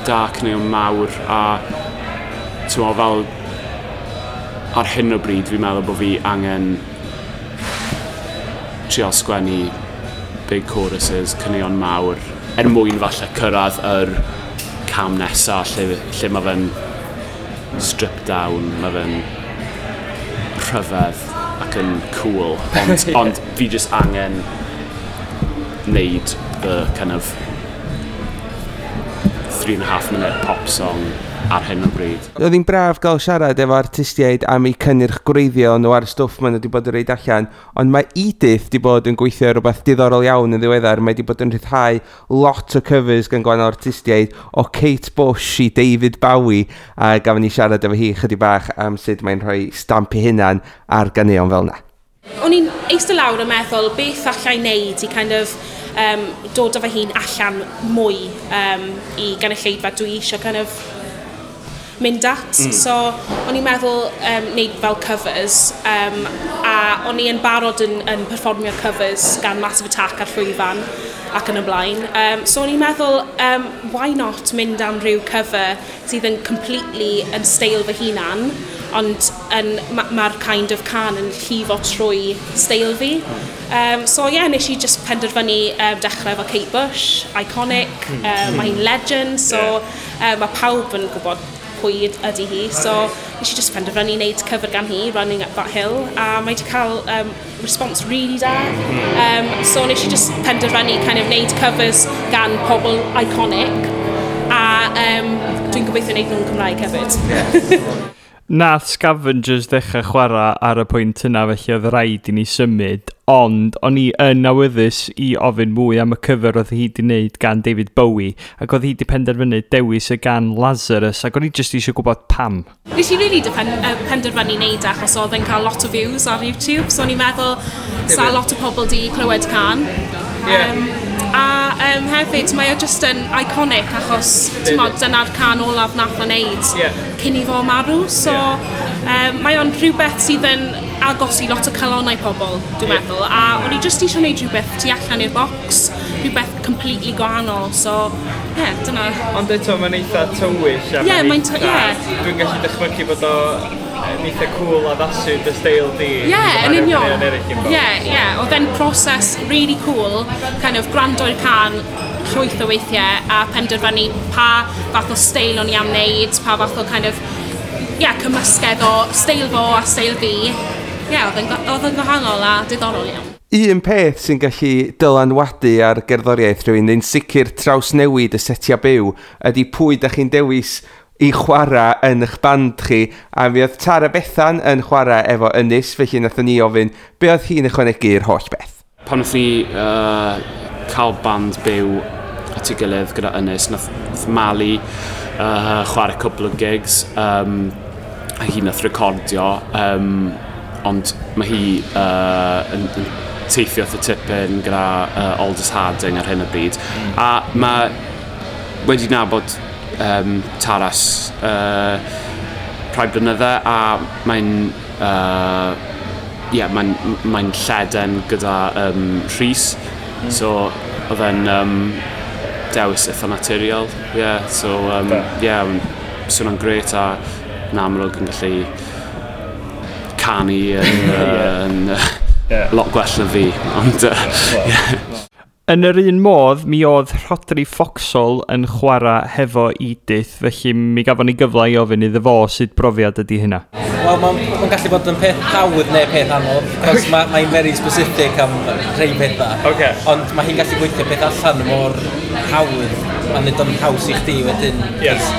da, caneuon mawr, a ti'n meddwl fel ar hyn o bryd fi'n meddwl bod fi angen trial sgwennu big choruses, caneuon mawr, er mwyn falle cyrraedd yr cam nesaf lle mae fe'n stripped down, mae fe'n rhyfedd ac yn cool, ond fi just angen wneud the kind of 3.5 minute pop song ar hyn o bryd. Oedd hi'n braf gael siarad efo artistiaid am eu cynnyrch gwreiddiol nhw a'r stwff maen nhw wedi bod yn rhoid allan, ond mae Edith wedi bod yn gweithio ar rhywbeth diddorol iawn yn ddiweddar. Mae wedi bod yn rhyddhau lot o covers gan gwahanol artistiaid, o Kate Bush i David Bowie, a gafon ni siarad efo hi chydig bach am sut mae'n rhoi stamp ei hunan ar ganeuon fel yna. O'n i'n eistedd lawr yn meddwl beth allai wneud i kind of dod â fy hun allan mwy i gynulleidfa dwi eisiau kind of mynd at. So, o'n i'n meddwl wneud fel covers, a o'n i yn barod yn perfformio covers gan Massive Attack ar llwyfan ac yn y blaen. So o'n i'n meddwl, why not mynd am rhyw cover sydd yn completely yn steil fy hunan, ond mae'r kind of can yn llifo trwy steil fi. So yeah, nes i just penderfynu dechrau efo Kate Bush, iconic, mae hi'n legend, so mae pawb yn gwybod pwy ydy hi. So nes i just penderfynu wneud cover gan hi, Running Up That Hill, a mae wedi cael response really da. So nes i just penderfynu kind of wneud covers gan pobl iconic, a dwi'n gobeithio wneud nhw'n Cymraeg hefyd. Nath Scavengers ddechrau chwarae ar y pwynt yna, felly oedd rhaid i ni symud, ond o'n i yn awyddus i ofyn mwy am y cover oedd hi wedi wneud gan David Bowie, ac oedd hi wedi penderfynu dewis y gan Lazarus, ac o'n i jyst eisiau gwybod pam. Nes i really penderfynu wneud achos oedd yn cael lot o views ar YouTube, so o'n i'n meddwl sa lot o pobl di clywed can. A hefyd, mae o just yn iconic achos, ti'n mod, dyna'r can olaf nath o wneud cyn i fo marw. So, mae o'n rhywbeth sydd yn agos i lot o calonnau pobl, dwi'n meddwl. A o'n i just eisiau gwneud rhywbeth tu allan i'r box, rhywbeth completely gwahanol. So, yeah, dyna. Ond eto, mae'n eitha tywyll. A yeah, mae'n Dwi'n gallu dychmygu bod o yn eitha cool addasu dy steil di. Yeah, yn union. Yeah. Oedd e'n proses really cool, kind of gwrando i'r can llwyth o weithiau a penderfynu pa fath o steil o'n i am wneud, pa fath o kind of, yeah, cymysgedd o steil fo a steil fi. Yeah, oedd yn gwahanol a diddorol iawn. Un peth sy'n gallu dylanwadu ar gerddoriaeth rhywun, neu'n sicr trawsnewid y setiau byw, ydy pwy da chi'n dewis i chwarae yn eich band chi. A mi oedd Tara Bethan yn chwarae efo Ynys, felly nathon ni ofyn be oedd hi'n ychwanegu i'r holl beth. Pan nath ni cael band byw at ei gilydd gyda Ynys, nath Mali chwarae cwpl o gigs, a hi nath recordio, ond mae hi yn teithio wrth y tipyn gyda Aldous Harding ar hyn o bryd. A mae wedi nabod Taras rhai blynydde, a mae'n mae'n lleden gyda Rhys, so oedd e'n dewis eitha naturiol, yeah, so yeah, swnio'n grêt a yn amlwg yn gallu canu yn lot gwell na fi, ond yeah. Yn yr un modd, mi oedd Rhodri Foxall yn chwarae hefo Edith, felly mi gafon ni gyfle i ofyn iddo fo sut brofiad ydy hynna. Wel, mae'n gallu bod yn peth hawdd neu peth anodd, cos mae'n very specific am rhai pethau. Okay. Ond mae hi'n gallu gweithio peth allan mor hawdd, a nid o'n haws i chdi wedyn. Yes.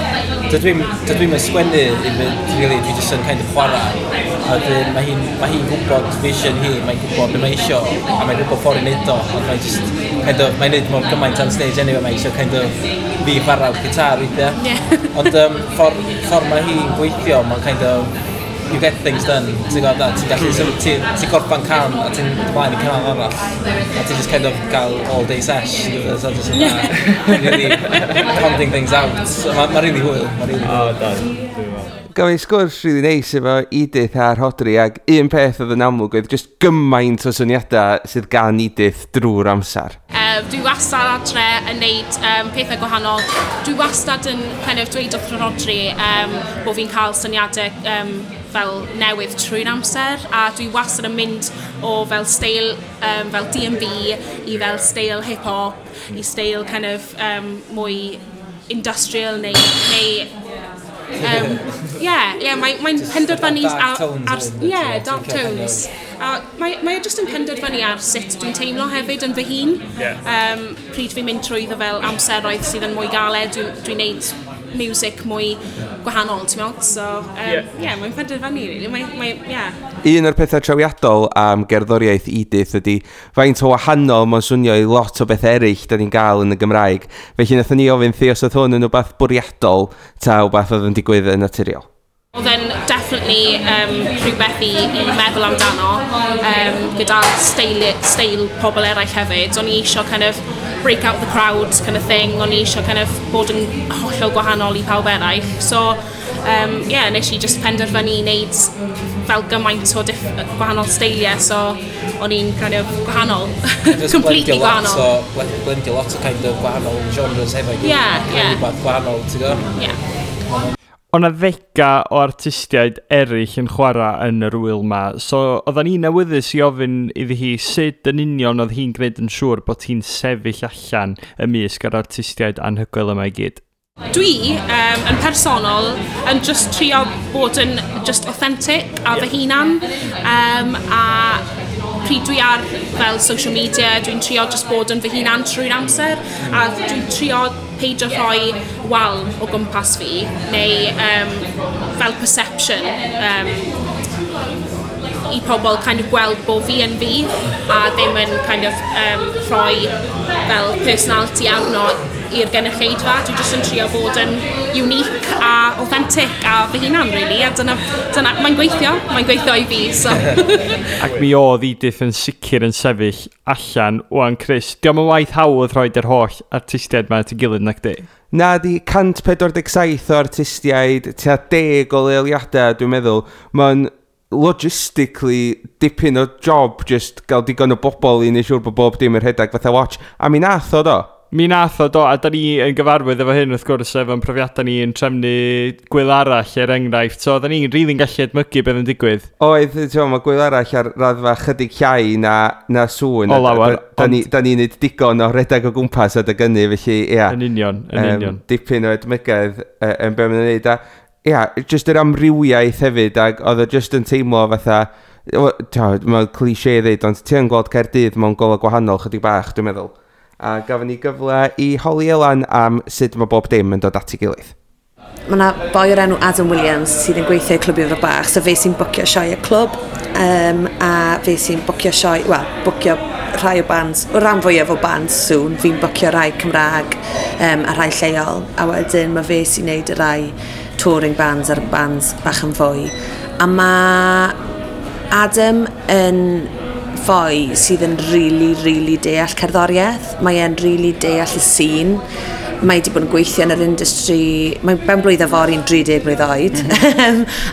Dydw i'm yn sgwennu i fynd, really, dwi jyst yn kind of chwarae. A wedyn mae hi'n gwybod vision hi, mae'n gwybod beth mae isio, a mae'n gwybod ffordd i wneud o, ond mae'n just kind of, mae'n neud mor gymaint on stage anyway, mae eisiau kind of fi chwarae'r gitar weithiau. Yeah. Ond ffordd mae hi'n gweithio, mae'n kind of, you get things done, ti'n gwybod, ti'n gallu, ti'n gorffan can a ti'n ymlaen i can arall, a ti'n just kind of gael all day sesh, so just really pounding things out. So, mae'n really hwyl, mae'n really hwyl. Oh, done. Gafon ni sgwrs really neis efo Edith a Rhodri, ac un peth oedd yn amlwg oedd just gymaint o syniadau sydd gan Edith drwy'r amser. Dwi wastad adre yn neud pethau gwahanol. Dwi wastad yn kind of dweud wrth Rodri bod fi'n cael syniadau fel newydd trwy'r amser, a dwi wastad yn mynd o fel steil fel D&B i fel steil hip-hop i steil kind of mwy industrial neu yeah, mae'n penderfynu Dark tones ar hefyd, yeah, ti'n dark licio kind tones. A mae e jyst yn penderfynu ar sut dwi'n teimlo hefyd yn fy hun. Pryd fi'n mynd trwyddo fel amseroedd sydd yn mwy galed, dwi'n neud music mwy gwahanol, ti'n meddwl? So, yeah, mae'n penderfynu, really. Mae, yeah. Un o'r pethau trawiadol am gerddoriaeth Edith ydy faint o wahanol mae'n swnio i lot o beth eraill da ni'n gael yn y Gymraeg. Felly nathon ni ofyn thi os oedd hwn yn rhywbeth bwriadol ta rhywbeth oedd yn digwydd yn naturiol. Oedd e'n definitely rhywbeth i meddwl amdano gyda steil pobl eraill hefyd. O'n i eisiau kind of break out the crowd kind of thing. O'n i eisiau kind of bod yn hollol gwahanol i pawb eraill. So, yeah, nes i just penderfynu i wneud fel gymaint o gwahanol steiliau. So, o'n i'n kind of gwahanol. Just Completely blendio lot gwahanol. o, blendio lot o kind of gwahanol genres hefo'i gilydd. Creu rhywbeth gwahanol, ti'n gwybod? Yeah. O 'na ddega o artistiaid eraill yn chwarae yn yr wyl ma, so oedden ni'n awyddus i ofyn iddi hi sut yn union oedd hi'n gwneud yn siŵr bod hi'n sefyll allan ymysg yr artistiaid anhygoel yma i gyd. Dwi, yn personol, yn just trio bod yn just authentic a fy hunan. A pryd dwi ar fel social media, dwi'n trio just bod yn fy hunan trwy'r amser. A dwi'n trio peidio rhoi wal o gwmpas fi, neu fel perception i pobl kind of gweld bod fi yn fi a ddim yn kind of rhoi fel personality arno i'r gynulleidfa. Dwi jyst yn trio bod yn unique a authentic a fy hunan, really. A dyna mae'n gweithio i fi. So. Ac mi oedd Edith yn sicr yn sefyll allan. Wan, Chris, dio'm yn waith hawdd rhoi yr holl artistiaid ma at ei gilydd, nac di? Na di, 147 o artistiaid, tua 10 o leoliadau, dwi'n meddwl. Mae'n logistically dipyn o job just gael digon o bobl i wneud siŵr bod bob dim yn rhedeg fatha watch. A mi nath o do. Mi nath o do, a da ni yn gyfarwydd efo hyn wrth gwrs efo'n profiadau ni yn trefnu gwyl arall er enghraifft, so oedden ni'n rili'n gallu edmygu beth yn digwydd. Oedd, ti'n gwbod, mae gwyl arall ar raddfa chydig llai na Sŵn. O lawer, Da ni'n neud digon o redeg o gwmpas adeg hynny, felly, ia. Yn union, yn union. Dipyn o edmygedd yn be maen nhw'n neud. A, ia, just yr amrywiaeth hefyd, ac oedd o just yn teimlo fatha, mae'n cliché ddeud, ond ti yn gweld Caerdydd mewn golau gwahanol chydig bach, dwi'n meddwl. A gafon ni gyfle i holi Elan am sut mae bob dim yn dod at ei gilydd. Mae yna boi o'r enw Adam Williams sydd yn gweithio i Clwb Ifor Bach, so fe sy'n bwcio sioe y clwb, a fe sy'n bwcio sioe, wel, bwcio rhai o bands, o ran fwyaf o bands Sŵn, fi'n bwcio rhai Cymraeg a rhai lleol, a wedyn mae fe sy'n neud y rhai touring bands a'r bands bach yn fwy. A mae Adam yn foi sydd yn really, really deall cerddoriaeth. Mae e'n really deall y scene. Mae wedi bod yn gweithio yn yr industry, mae'n ben blwydd fory'n 30 blwydd oed.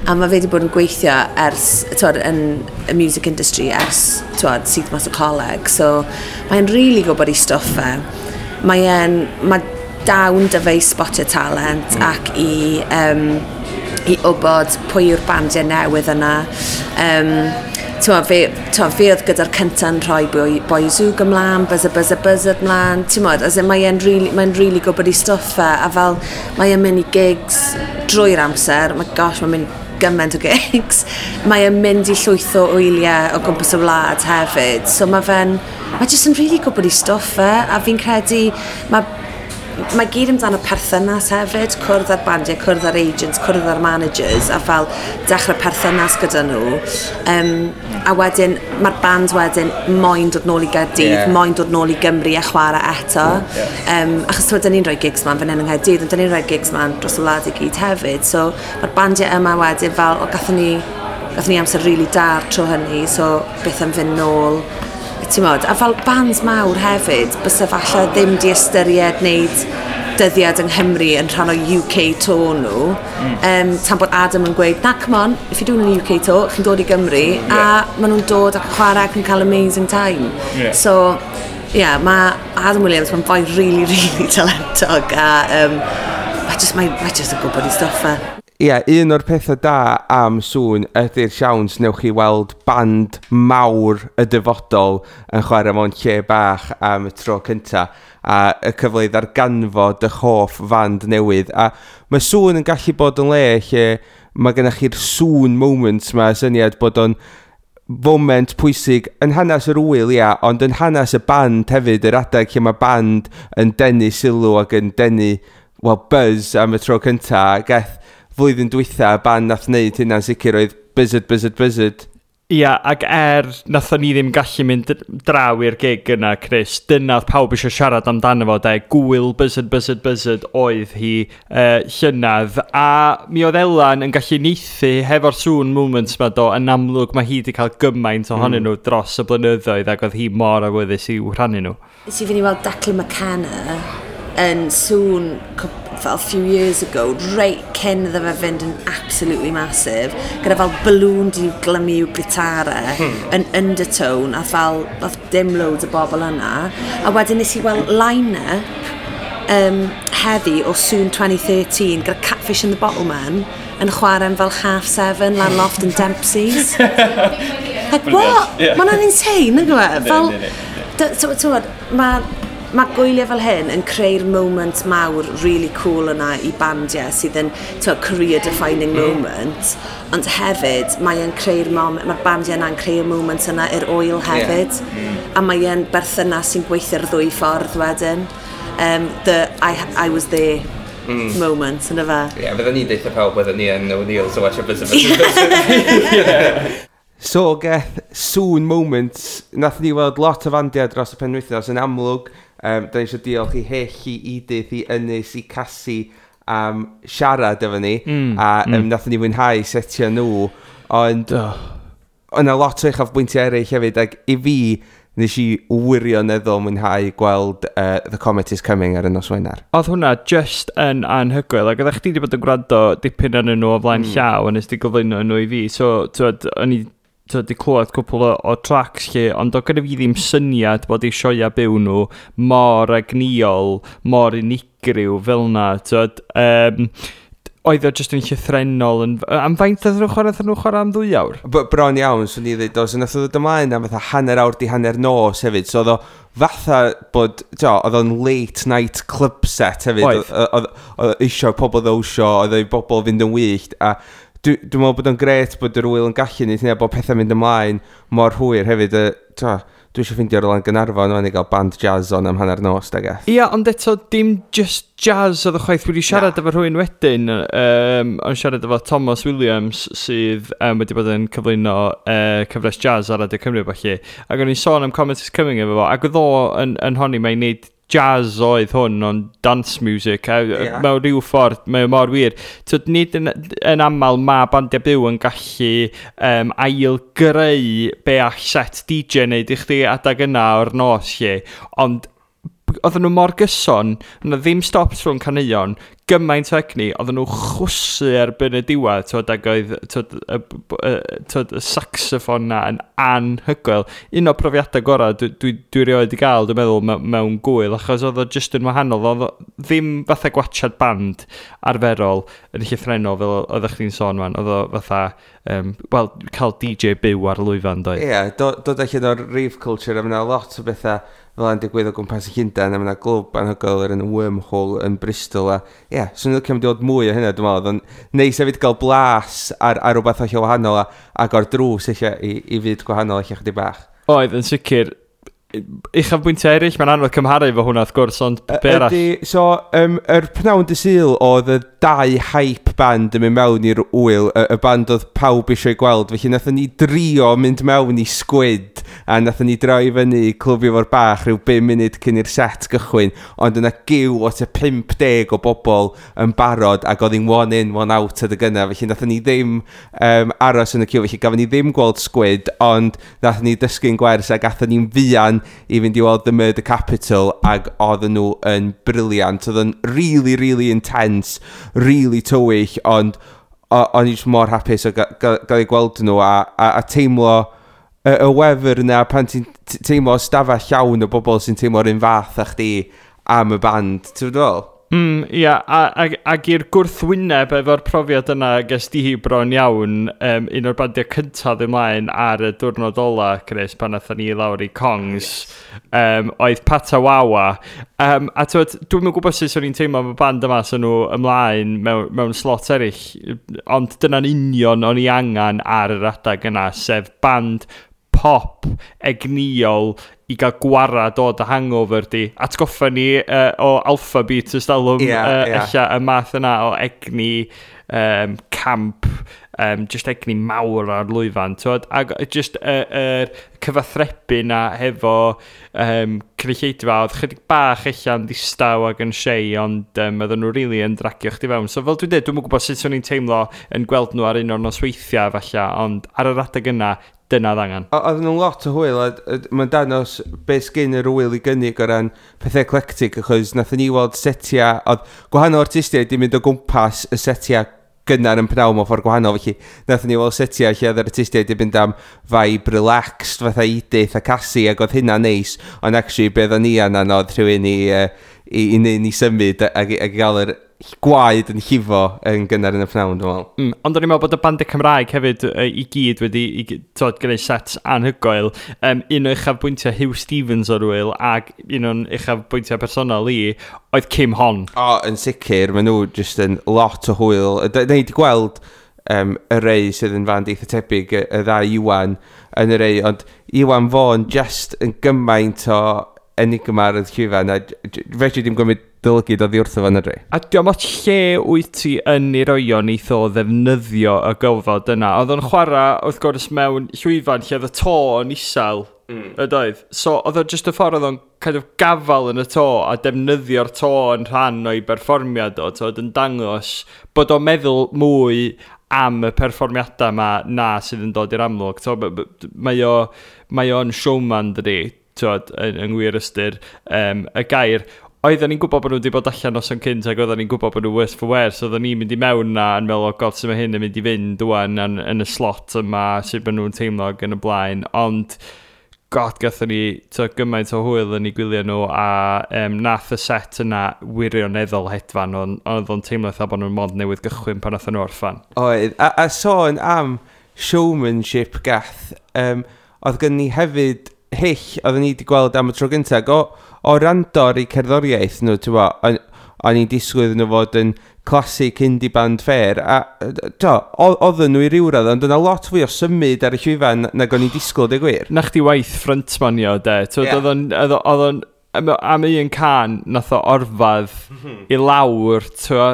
A mae fe wedi bod yn gweithio ers, twod, yn y music industry ers, twod, syth mas o coleg. So mae'n really gwybod ei stwff e. Mae dawn 'da fe i spotio talent ac i wybod pwy yw'r bandiau newydd yna. T'mo, fe oedd gyda'r cynta'n rhoi Boi Zoog ymlaen, Buzzer Buzzer Buzzard ymlaen, ti'n as in, mae'n really, mae really gwybod ei stwff e, a fel mae e'n mynd i gigs drwy'r amser, mae gosh, mae'n mynd gymaint o gigs. Mae e'n mynd i llwyth o wyliau o gwmpas y wlad hefyd, so mae jyst yn really gwybod ei stwff e, a fi'n credu, mae gyd amdano perthynas hefyd, cwrdd â'r bandiau, cwrdd â'r agents, cwrdd â'r managers, a fel dechrau perthynas gyda nhw. A wedyn, mae'r band wedyn moyn dod nôl i Gaerdydd, moyn dod nôl i Gymru a chwarae eto. Achos t'mod, dyn ni'n rhoi gigs man fan hyn yng Nghaerdydd, ond dyn ni'n rhoi gigs man dros y wlad i gyd hefyd. So mae'r bandiau yma wedyn fel, o, gathon ni amser really da'r tro hynny, so beth am fynd nôl, ti'n modd, a fel bands mawr hefyd, bysa falle ddim di ystyried wneud dyddiad yng Nghymru yn rhan o UK tour nhw. Tan bod Adam yn gweud, na, come on, if you're doing an UK tour, chi'n dod i Gymru, a maen nhw'n dod ac yn chwarae ac yn cael amazing time. So, Yeah, mae Adam Williams, mae'n boi really, really talentog a mae just yn gwybod ei stwff e. Ie, yeah, un o'r pethau da am Sŵn ydy'r siawns newch chi weld band mawr y dyfodol yn chwarae mewn lle bach am y tro cynta a y cyfle i ddarganfod eich hoff fand newydd. A mae Sŵn yn gallu bod yn le lle mae gennych chi'r Sŵn moments ma, syniad bod o'n foment pwysig yn hanes yr ŵyl, ia, ond yn hanes y band hefyd, yr adeg lle mae band yn denu sylw ac yn denu, well, buzz am y tro cynta. Geth flwyddyn dwytha, y band nath wneud hynna'n sicr oedd Buzzard, Buzzard, Buzzard. Ia, ac nathon ni ddim gallu mynd draw i'r gig yna, Chris, dyna oedd pawb eisiau siarad amdano fo, de, gwyl Buzzard, Buzzard, Buzzard oedd hi llynedd, a mi oedd Elan yn gallu neithu hefo'r Sŵn moments ma do, yn amlwg mae hi wedi cael gymaint ohonyn nhw dros y blynyddoedd ac oedd hi mor awyddus i'w rhannu nhw. Nes i fynd i weld Declan McKenna yn Sŵn fel few years ago, reit cyn iddo fe fynd yn absolutely massive, gyda fel balloon di glymu i'w gitare yn Undertone, a fel oedd dim loads o bobl yna. A wedyn nes i weld line-up heddi o Sŵn 2013 gyda Catfish and the Bottlemen yn chwarae am fel 7:30 lan loft yn Dempsey's. Like, what? Yeah. Mae hwnna'n insane, nag yw e? Fel, Yndi, t'wod, mae gwyliau fel hyn yn creu'r moment mawr really cool yna i bandiau sydd yn, t'wod, career defining moment, ond hefyd mae e'n creu'r moment, mae'r bandiau yna'n creu'r moment yna i'r ŵyl hefyd, a mae e'n berthynas sy'n gweithio'r ddwy ffordd wedyn. The I was there moment, yna fe. Ie, yeah, fydden ni'n deutha pawb bydden ni yn O'Neill's o watch Buzzard, Buzzard, Buzzard. So, Geth, Sŵn moments, nath ni weld lot o fandiau dros y penwythnos yn amlwg. Da ni eisiau diolch i Hyll, i Edith, i Ynys, i Cassie am siarad efo ni. A nath ni fwynhau setio nhw. Ond yna lot o uchafbwyntiau eraill hefyd, ac i fi, nes i wirioneddol mwynhau gweld The Comet is Coming ar y nos Wener. Oedd hwnna just yn anhygoel, ac oeddech chdi wedi bod yn gwrando dipyn arnyn nhw o flaen llaw, a nes di gyflwyno nhw i fi, so t'wod, o'n i, t'wod, di clywed cwpl o tracks lle, ond oedd gyda fi ddim syniad bod eu sioia byw nhw mor egnïol, mor unigryw fel na, t'wod, oedd o just yn llythrennol yn. Am faint oedd nhw'n chwarae? Oedd nhw'n chwarae am 2 awr? Bron iawn, swn i ddweud, so nath o ddod ymlaen am fatha hanner awr di hanner nos hefyd, so oedd o fatha bod, t'o, oedd o'n late night club set hefyd. Oedd. Oedd eisiau pobl ddawnsio, oedd o i bobl fynd yn wyllt, a dwi'n meddwl bod o'n gret bod yr ŵyl yn gallu neud hynna, bod pethau'n mynd ymlaen mor hwyr hefyd. T'o, dwi eisiau ffeindio rhywle yn Gaernarfon wan i gael band jazz on am hanner nos, da geth. Ia, ond eto, dim just jazz oedd y chwaith. Wedi siarad efo rhywun wedyn, o'n siarad efo Thomas Williams, sydd wedi bod yn cyflwyno cyfres jazz ar Radio Cymru, felly. Ac o'n i'n sôn am Comet is Coming efo fo, ac oedd o yn honni mae'n neud jazz oedd hwn, ond dance music, a mewn rhyw ffordd, mae o mor wir. Tyd, nid yn aml mae bandiau byw yn gallu ail-greu be all set DJ wneud i chdi adag yna o'r nos lle, ond oedden nhw mor gyson, yna ddim stops rhwng caneuon, gymaint o egni, oedden nhw chwysu erbyn y diwedd, twyd, ac oedd, twyd, twyd, y saxophone na yn anhygoel. Un o'r profiadau gorau dwi rioed i gael, dwi'n meddwl, mewn gwyl, achos oedd o just yn wahanol. Oedd o ddim fatha gwatchad band arferol yn llythrennol fel oeddech chdi'n sôn man. Oedd o fatha, wel, cael DJ byw ar lwyfan, doedd? Ie, yeah, dod allan o'r rave culture, a mae 'na lot o bethau fel yna'n digwydd o gwmpas y Llundain, a mae 'na glwb anhygoel yr yn Wormhole yn Bristol, a ie, yeah, swn i'n licio mynd i weld mwy o hynna, dwi'n meddwl. Oedd o'n neis hefyd gael blas ar rhywbeth hollol wahanol a agor drws eich i fyd gwahanol eich chydig bach. Oedd, yn sicr. Uchafbwyntiau eraill, mae'n anodd cymharu efo hwnna wrth gwrs, ond be arall? Ydy, so, yr pnawn dy Sul oedd y dau hype band yn mynd mewn i'r ŵyl, y band oedd pawb eisiau gweld, felly nathon ni drio mynd mewn i Squid, a nathon ni droi fyny i Clwb Ifor Bach rhyw 5 munud cyn i'r set gychwyn, ond yna giw o tua 50 o bobl yn barod, ac oedd hi'n one in, one out adeg yna, felly nathon ni ddim aros yn y ciw, felly gafon ni ddim gweld Squid, ond nathon ni dysgu'n gwers ac athon ni'n fuan i fynd i weld The Murder Capital, ac oedden nhw yn brilliant. Oedd yn really, really intense, really tywyll, ond o'n i jyst mor hapus o gael ei gweld nhw a teimlo y wefr yna pan ti'n teimlo stafell llawn o bobl sy'n teimlo'r un fath â chdi am y band, ti'n fel? Ia, ac i'r gwrthwyneb efo'r profiad yna ges di bron iawn, un o'r bandiau cyntaf ymlaen ar y diwrnod ola, Chris, pan nathon ni lawr i Kongs, oedd Patawawa. A t'wod, dwi'm yn gwybod sut o'n i'n teimlo am y band yma, so nhw ymlaen mewn slot eraill, ond dyna'n union o'n i angen ar yr adeg yna, sef band pop egnïol i gael gwarad o dy hangover di. Atgoffa ni o Alphabeat ystalwm, ella y math yna o egni camp, just egni mawr ar lwyfan, t'wod? Ac just yr cyfathrebu na hefo cynulleidfa, oedd chydig bach ella'n ddistaw ac yn shy, ond oedden nhw really yn dragio chdi fewn. So fel dwi'n dweud, dwi'm yn gwybod sut o'n i'n teimlo yn gweld nhw ar un o'r nosweithiau falle, ond ar yr adeg yna, dyna oedd angen. Oedden nhw'n lot o hwyl, a mae'n danos beth sgyn yr wyl i gynnig o ran pethau eclectic, achos nathon ni weld setiau, oedd gwahanol artistiaid di mynd o gwmpas y setiau gynnar yn pnawn mewn ffordd gwahanol, felly nathon ni weld setiau lle oedd yr artistiaid di mynd am vibe relaxed, fatha Edith a Cassie, ac oedd hynna'n neis, ond actually be oedden ni angen oedd rhywun i neud ni symud ac i gael yr gwaed yn llifo yn gynnar yn y pnawn, dwi'n meddwl. Ond o'n i'n meddwl bod y bandiau Cymraeg hefyd i gyd wedi t'wod, gwneud sets anhygoel. Un o uchafbwyntiau Huw Stephens o'r wyl ac un o'n uchafbwyntiau personol i oedd Kim Hon. O, yn sicr, maen nhw jyst yn lot o hwyl. Da ni wedi gweld y rei sydd yn fand eitha tebyg, y ddau Iwan yn y rei, ond Iwan Fôn just yn gymaint o enigma ar y llwyfan, a fedri dim gymryd dy lygid oddi wrtho fo na dri. A diolch ots lle wyt ti yn ei roi o, neith o ddefnyddio y gofod yna. Oedd o'n chwarae, wrth gwrs, mewn llwyfan lle oedd y to yn isel, ydoedd. So oedd o just y ffordd oedd o'n kind of gafal yn y to a defnyddio'r to yn rhan o'i berfformiad o, t'wod, yn dangos bod o'n meddwl mwy am y perfformiadau yma na sydd yn dod i'r amlwg. To, mae o'n showman, dydi, t'wod, yng ngwir ystyr y gair. Oedden ni'n gwybod bod nhw wedi bod allan noson cynt ac oedden ni'n gwybod bod nhw worse for wear, so oedden ni'n mynd i mewn na yn meddwl, oh God, sut mae hyn yn mynd i fynd wan yn y slot yma, sut maen nhw'n teimlo ac yn y blaen, ond God, gathon ni to, gymaint o hwyl yn eu gwylio nhw a nath y set yna wirioneddol hedfan, ond oedd o'n teimlo fatha bod nhw'n mond newydd gychwyn pan nathon nhw orffan. Oedd, a sôn am showmanship gath, oedd gen ni hefyd Hyll, oedden ni wedi gweld am y tro gyntaf, o rando ar eu cerddoriaeth nhw, ti'n bo, o'n i'n disgwyl iddyn nhw fod yn classic indie band ffair, a do, oedden nhw i ryw radd, ond yna lot fwy o symud ar y llwyfan nag o'n i'n disgwyl, dweud gwir. Na chdi waith frontmanio, de. T'wod, oedd o'n am un can, nath o orfadd i lawr, t'wo,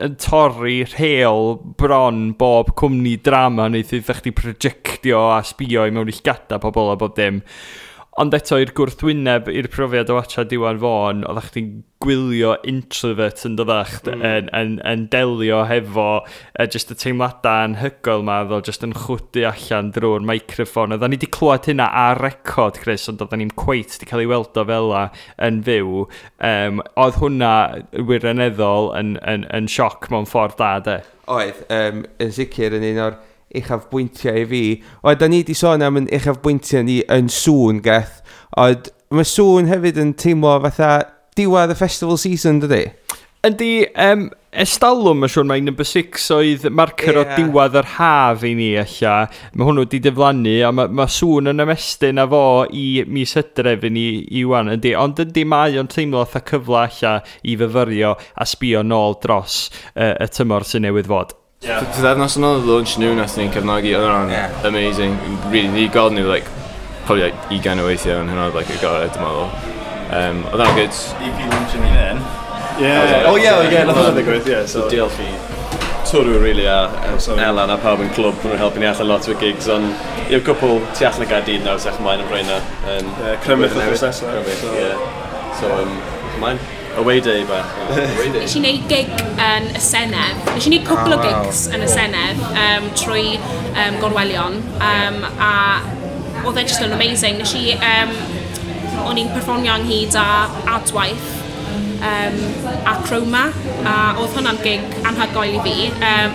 yn torri rheol bron bob cwmni drama, wneith iddo chdi projectio a sbio i mewn i llgada pobl a bob dim. Ond eto i'r gwrthwyneb i'r profiad o watchad Iwan Fôn, oeddech chdi'n gwylio introvert yn doddach yn delio hefo just y teimladau anhygoel ma, oedd o just yn chwdu allan drwy'r microffon. Oedden ni wedi clywed hynna ar record, Chris, ond oedden ni'n cweit wedi cael ei weld o fel 'a yn fyw. Oedd hwnna wirioneddol yn sioc mewn ffordd da, de. Oedd, yn sicr yn un o'r uchafbwyntiau i fi. Oedd, da ni wedi sôn am yn uchafbwyntiau ni yn Sŵn, Geth. Oedd, mae Sŵn hefyd yn teimlo fatha diwedd y festival season, dydy? Yndi, estalwm, mae'n siŵr mai number 6 oedd marker o diwedd yr haf i ni ella. Mae hwnnw wedi diflannu, a mae Sŵn yn ymestyn â fo i mis Hydref i ni i wan, yndi. Ond yndi, mae o'n teimlo fatha cyfle ella i fyfyrio a sbio nôl dros y tymor sy'n newydd fod. Pythefnos yn ôl, launch nhw, nath ni'n cefnogi, oedd hwnna'n amazing. Really, ni gweld nhw, like, probably like 20 o weithiau, ond hwnna oedd like, y gorau, dwi'n meddwl. Oedd hwnna'n good. EP launch yn un. Yeah. Oh yeah, nath hwnna ddigwydd, yeah. So diolch i Twrw, really, a Elan a pawb yn clwb, maen nhw'n helpu ni allan lot o gigs, ond i'r cwpl tu allan y Gaerdydd nawr, sech ymlaen am rheina. Crymych wythnos nesaf. Crymych, yeah. So, ymlaen. Away day bach. Away day. Nes i wneud gig yn y Senedd. Nes i wneud cwpl o gigs yn y Senedd trwy Gorwelion. A oedd e just yn amazing. O'n i'n perfformio ynghyd â Adwaith. a Chroma, a oedd hwnna'n gig anhygoel i fi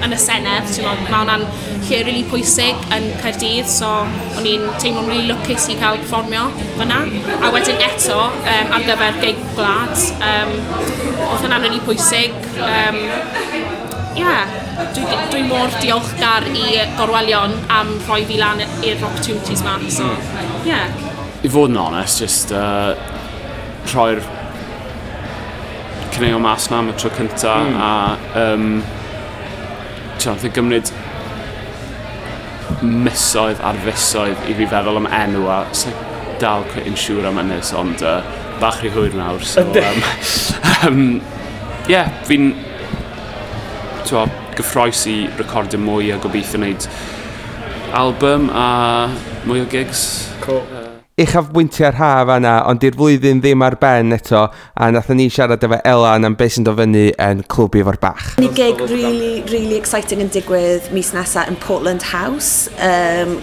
yn y Senedd, ti'n meddwl, mae hwnna'n lle rili pwysig yn Caerdydd, so o'n i'n teimlo'n rili lwcus i cael perfformio fyna. A wedyn eto, ar gyfer gig gwlad, oedd hwnna'n rili pwysig. Yeah, dwi mor diolchgar i Gorwelion am rhoi fi lan i'r opportunities ma. So, yeah. I fod yn onest, just rhoi'r caneuon mas na am y tro cynta a ti'n gymryd misoedd ar fisoedd i fi feddwl am enw a sa'n dal quite yn siŵr am hynny, ond bach rhy hwyr nawr, so yeah, fi'n gyffroes i recordio mwy a gobeithio wneud album a mwy o gigs. Cool. Uchafbwyntiau'r haf yna, ond di'r flwyddyn ddim ar ben eto, a nathon ni siarad efo Elan am beth sy'n dod fyny yn Clwb Ifor Bach. Ni gig really, really exciting yn digwydd mis nesaf yn Portland House.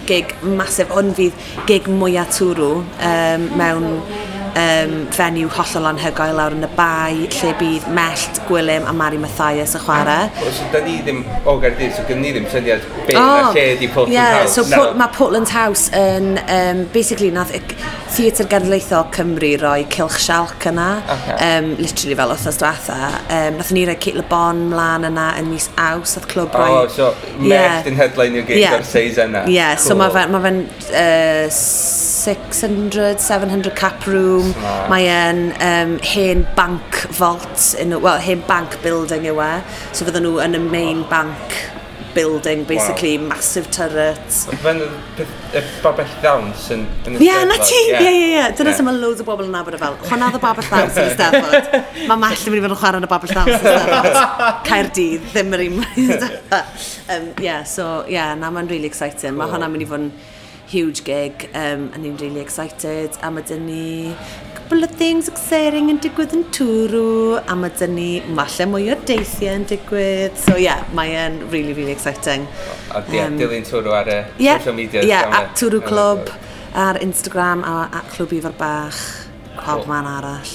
Gig massive, hwn fydd gig mwyaf Twrw mewn venue hollol anhygoel lawr yn y Bae, lle bydd Mellt, Gwilym a Mari Mathias yn chwarae. So, da ni ddim o Gaerdydd, so gynnu ni ddim syniad be na lle di Portland House. So mae Portland House yn, basically, nath Theatr Genedlaethol Cymru roi Cylch Sialc yna, literally fel wythnos diwetha. Nathon ni roi Cate Le Bon mlaen yna yn mis Awst, nath clwb roi... Oh, so Mellt yn headline i'r gig o'r seis yna. Yeah, so mae fe'n 600, 700 cap room. Mae e'n hen bank vault, well, hen bank building yw e. So fydden nhw yn y main bank building, basically, massive turret. Fe'n y babell ddawns yn y Ie, na ti! Ie. Dyna sy'n mae loads o bobl yn nabod e fel. Hwnna oedd y babell ddawns yn y Steddfod. Mae Mellt yn mynd i fod yn chwarae yn y babell ddawns yn y Steddfod. Caerdydd, ddim yr un. Yeah, so, yeah, na, mae'n really exciting. Mae hwnna'n mynd i fod yn huge gig, and ni'n really excited. A mae dyn ni couple of things exciting yn digwydd yn Twrw, a mae dyn ni falle mwy o deithiau yn digwydd. So yeah, mae e'n really, really exciting. A dilyn Twrw ar y social media. Yeah, at Twrw Clwb ar Instagram a at Clwb Ifor Bach, pob man arall.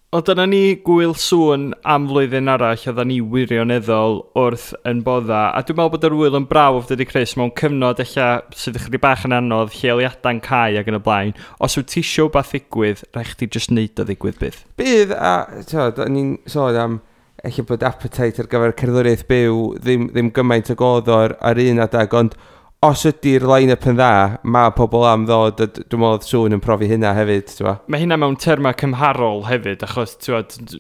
O, dyna ni Gŵyl Sŵn am flwyddyn arall, oedden ni wirioneddol wrth yn bodda. A dwi'n meddwl bod yr ŵyl yn brawf, dydy Chris, mewn cyfnod ella sydd ychydig bach yn anodd, lleoliadau'n cau ac yn y blaen. Os wyt ti isio wbath ddigwydd, rhaid chdi jyst neud o ddigwydd bydd. Bydd, a t'od, o'n i'n sôn am ella bod appetite ar gyfer cerddoriaeth byw ddim gymaint ag oedd o ar un adeg, ond os ydy'r line-up yn dda, mae pobl am ddod, a dwi'n meddwl Sŵn yn profi hynna hefyd, ti'n Mae hynna mewn termau cymharol hefyd, achos ti'n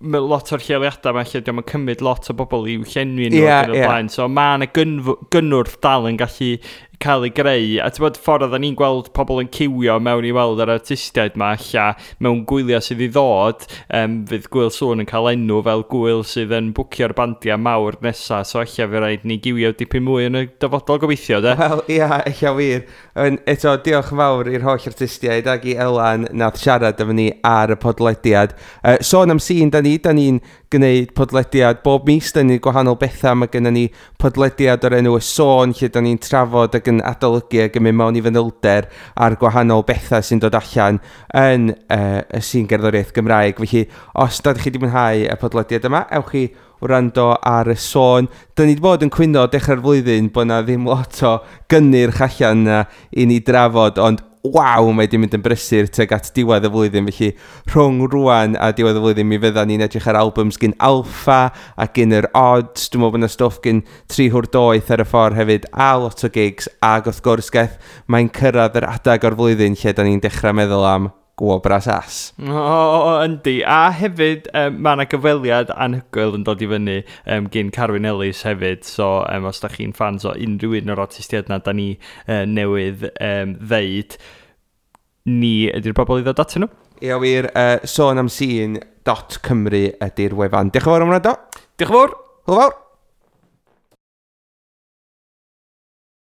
mae lot o'r lleoliadau yma lle diolch yn cymryd lot o bobl i'w llenwi nhw ac yn y blaen. So mae yna gynnwrf dal yn gallu cael ei greu. A ti'n bod ffordd oedden ni'n gweld pobl yn ciwio mewn i weld yr artistiaid ma ella mewn gwyliau sydd i ddod, fydd Gŵyl Sŵn yn cael enw fel gwyl sydd yn bwcio'r bandiau mawr nesa, so ella fe rhaid ni giwio dipyn mwy yn y dyfodol gobeithio, de? Wel, ia, ella wir. Eto, diolch yn fawr i'r holl artistiaid ac i Elan nath siarad efo ni ar y podlediad. Sôn am sîn, da ni'n gwneud podlediad bob mis, da ni'n gwahanol bethau. Mae gennym ni podlediad o'r enw Y Sôn, lle da ni'n trafod ac yn adolygu ac yn mynd mewn i fanylder ar gwahanol bethau sy'n dod allan yn y sîn gerddoriaeth Gymraeg. Felly, os da chi wedi mwynhau y podlediad yma, ewch chi wrando ar Y Sôn. Da ni wedi bod yn cwyno dechrau'r flwyddyn bod na ddim lot o gynnyrch allan na i ni drafod, ond waw, mae di mynd yn brysur tuag at diwedd y flwyddyn. Felly rhwng rwan a diwedd y flwyddyn mi fydda ni'n edrych ar albums gyn Alpha a gyn yr Odds. Dwi'n meddwl bod yna stwff gyn Tri Hwr Doeth ar y ffordd hefyd, a lot o gigs, ac wrth gwrs geth mae'n cyrraedd yr adeg o'r flwyddyn lle da ni'n dechrau meddwl am Gwobra Sas. O, yndi. A hefyd, mae yna gyfweliad anhygoel yn dod i fyny gyn Carwyn Ellis hefyd. So, os da chi'n fans o unrhyw un o'r artistiaid na da ni newydd ddeud, ni ydy'r bobl i ddod atyn nhw. Ie, wir, sonamsîn.cymru ydy'r wefan. Diolch yn fawr am wrando. Diolch yn fawr. Hwyl fawr.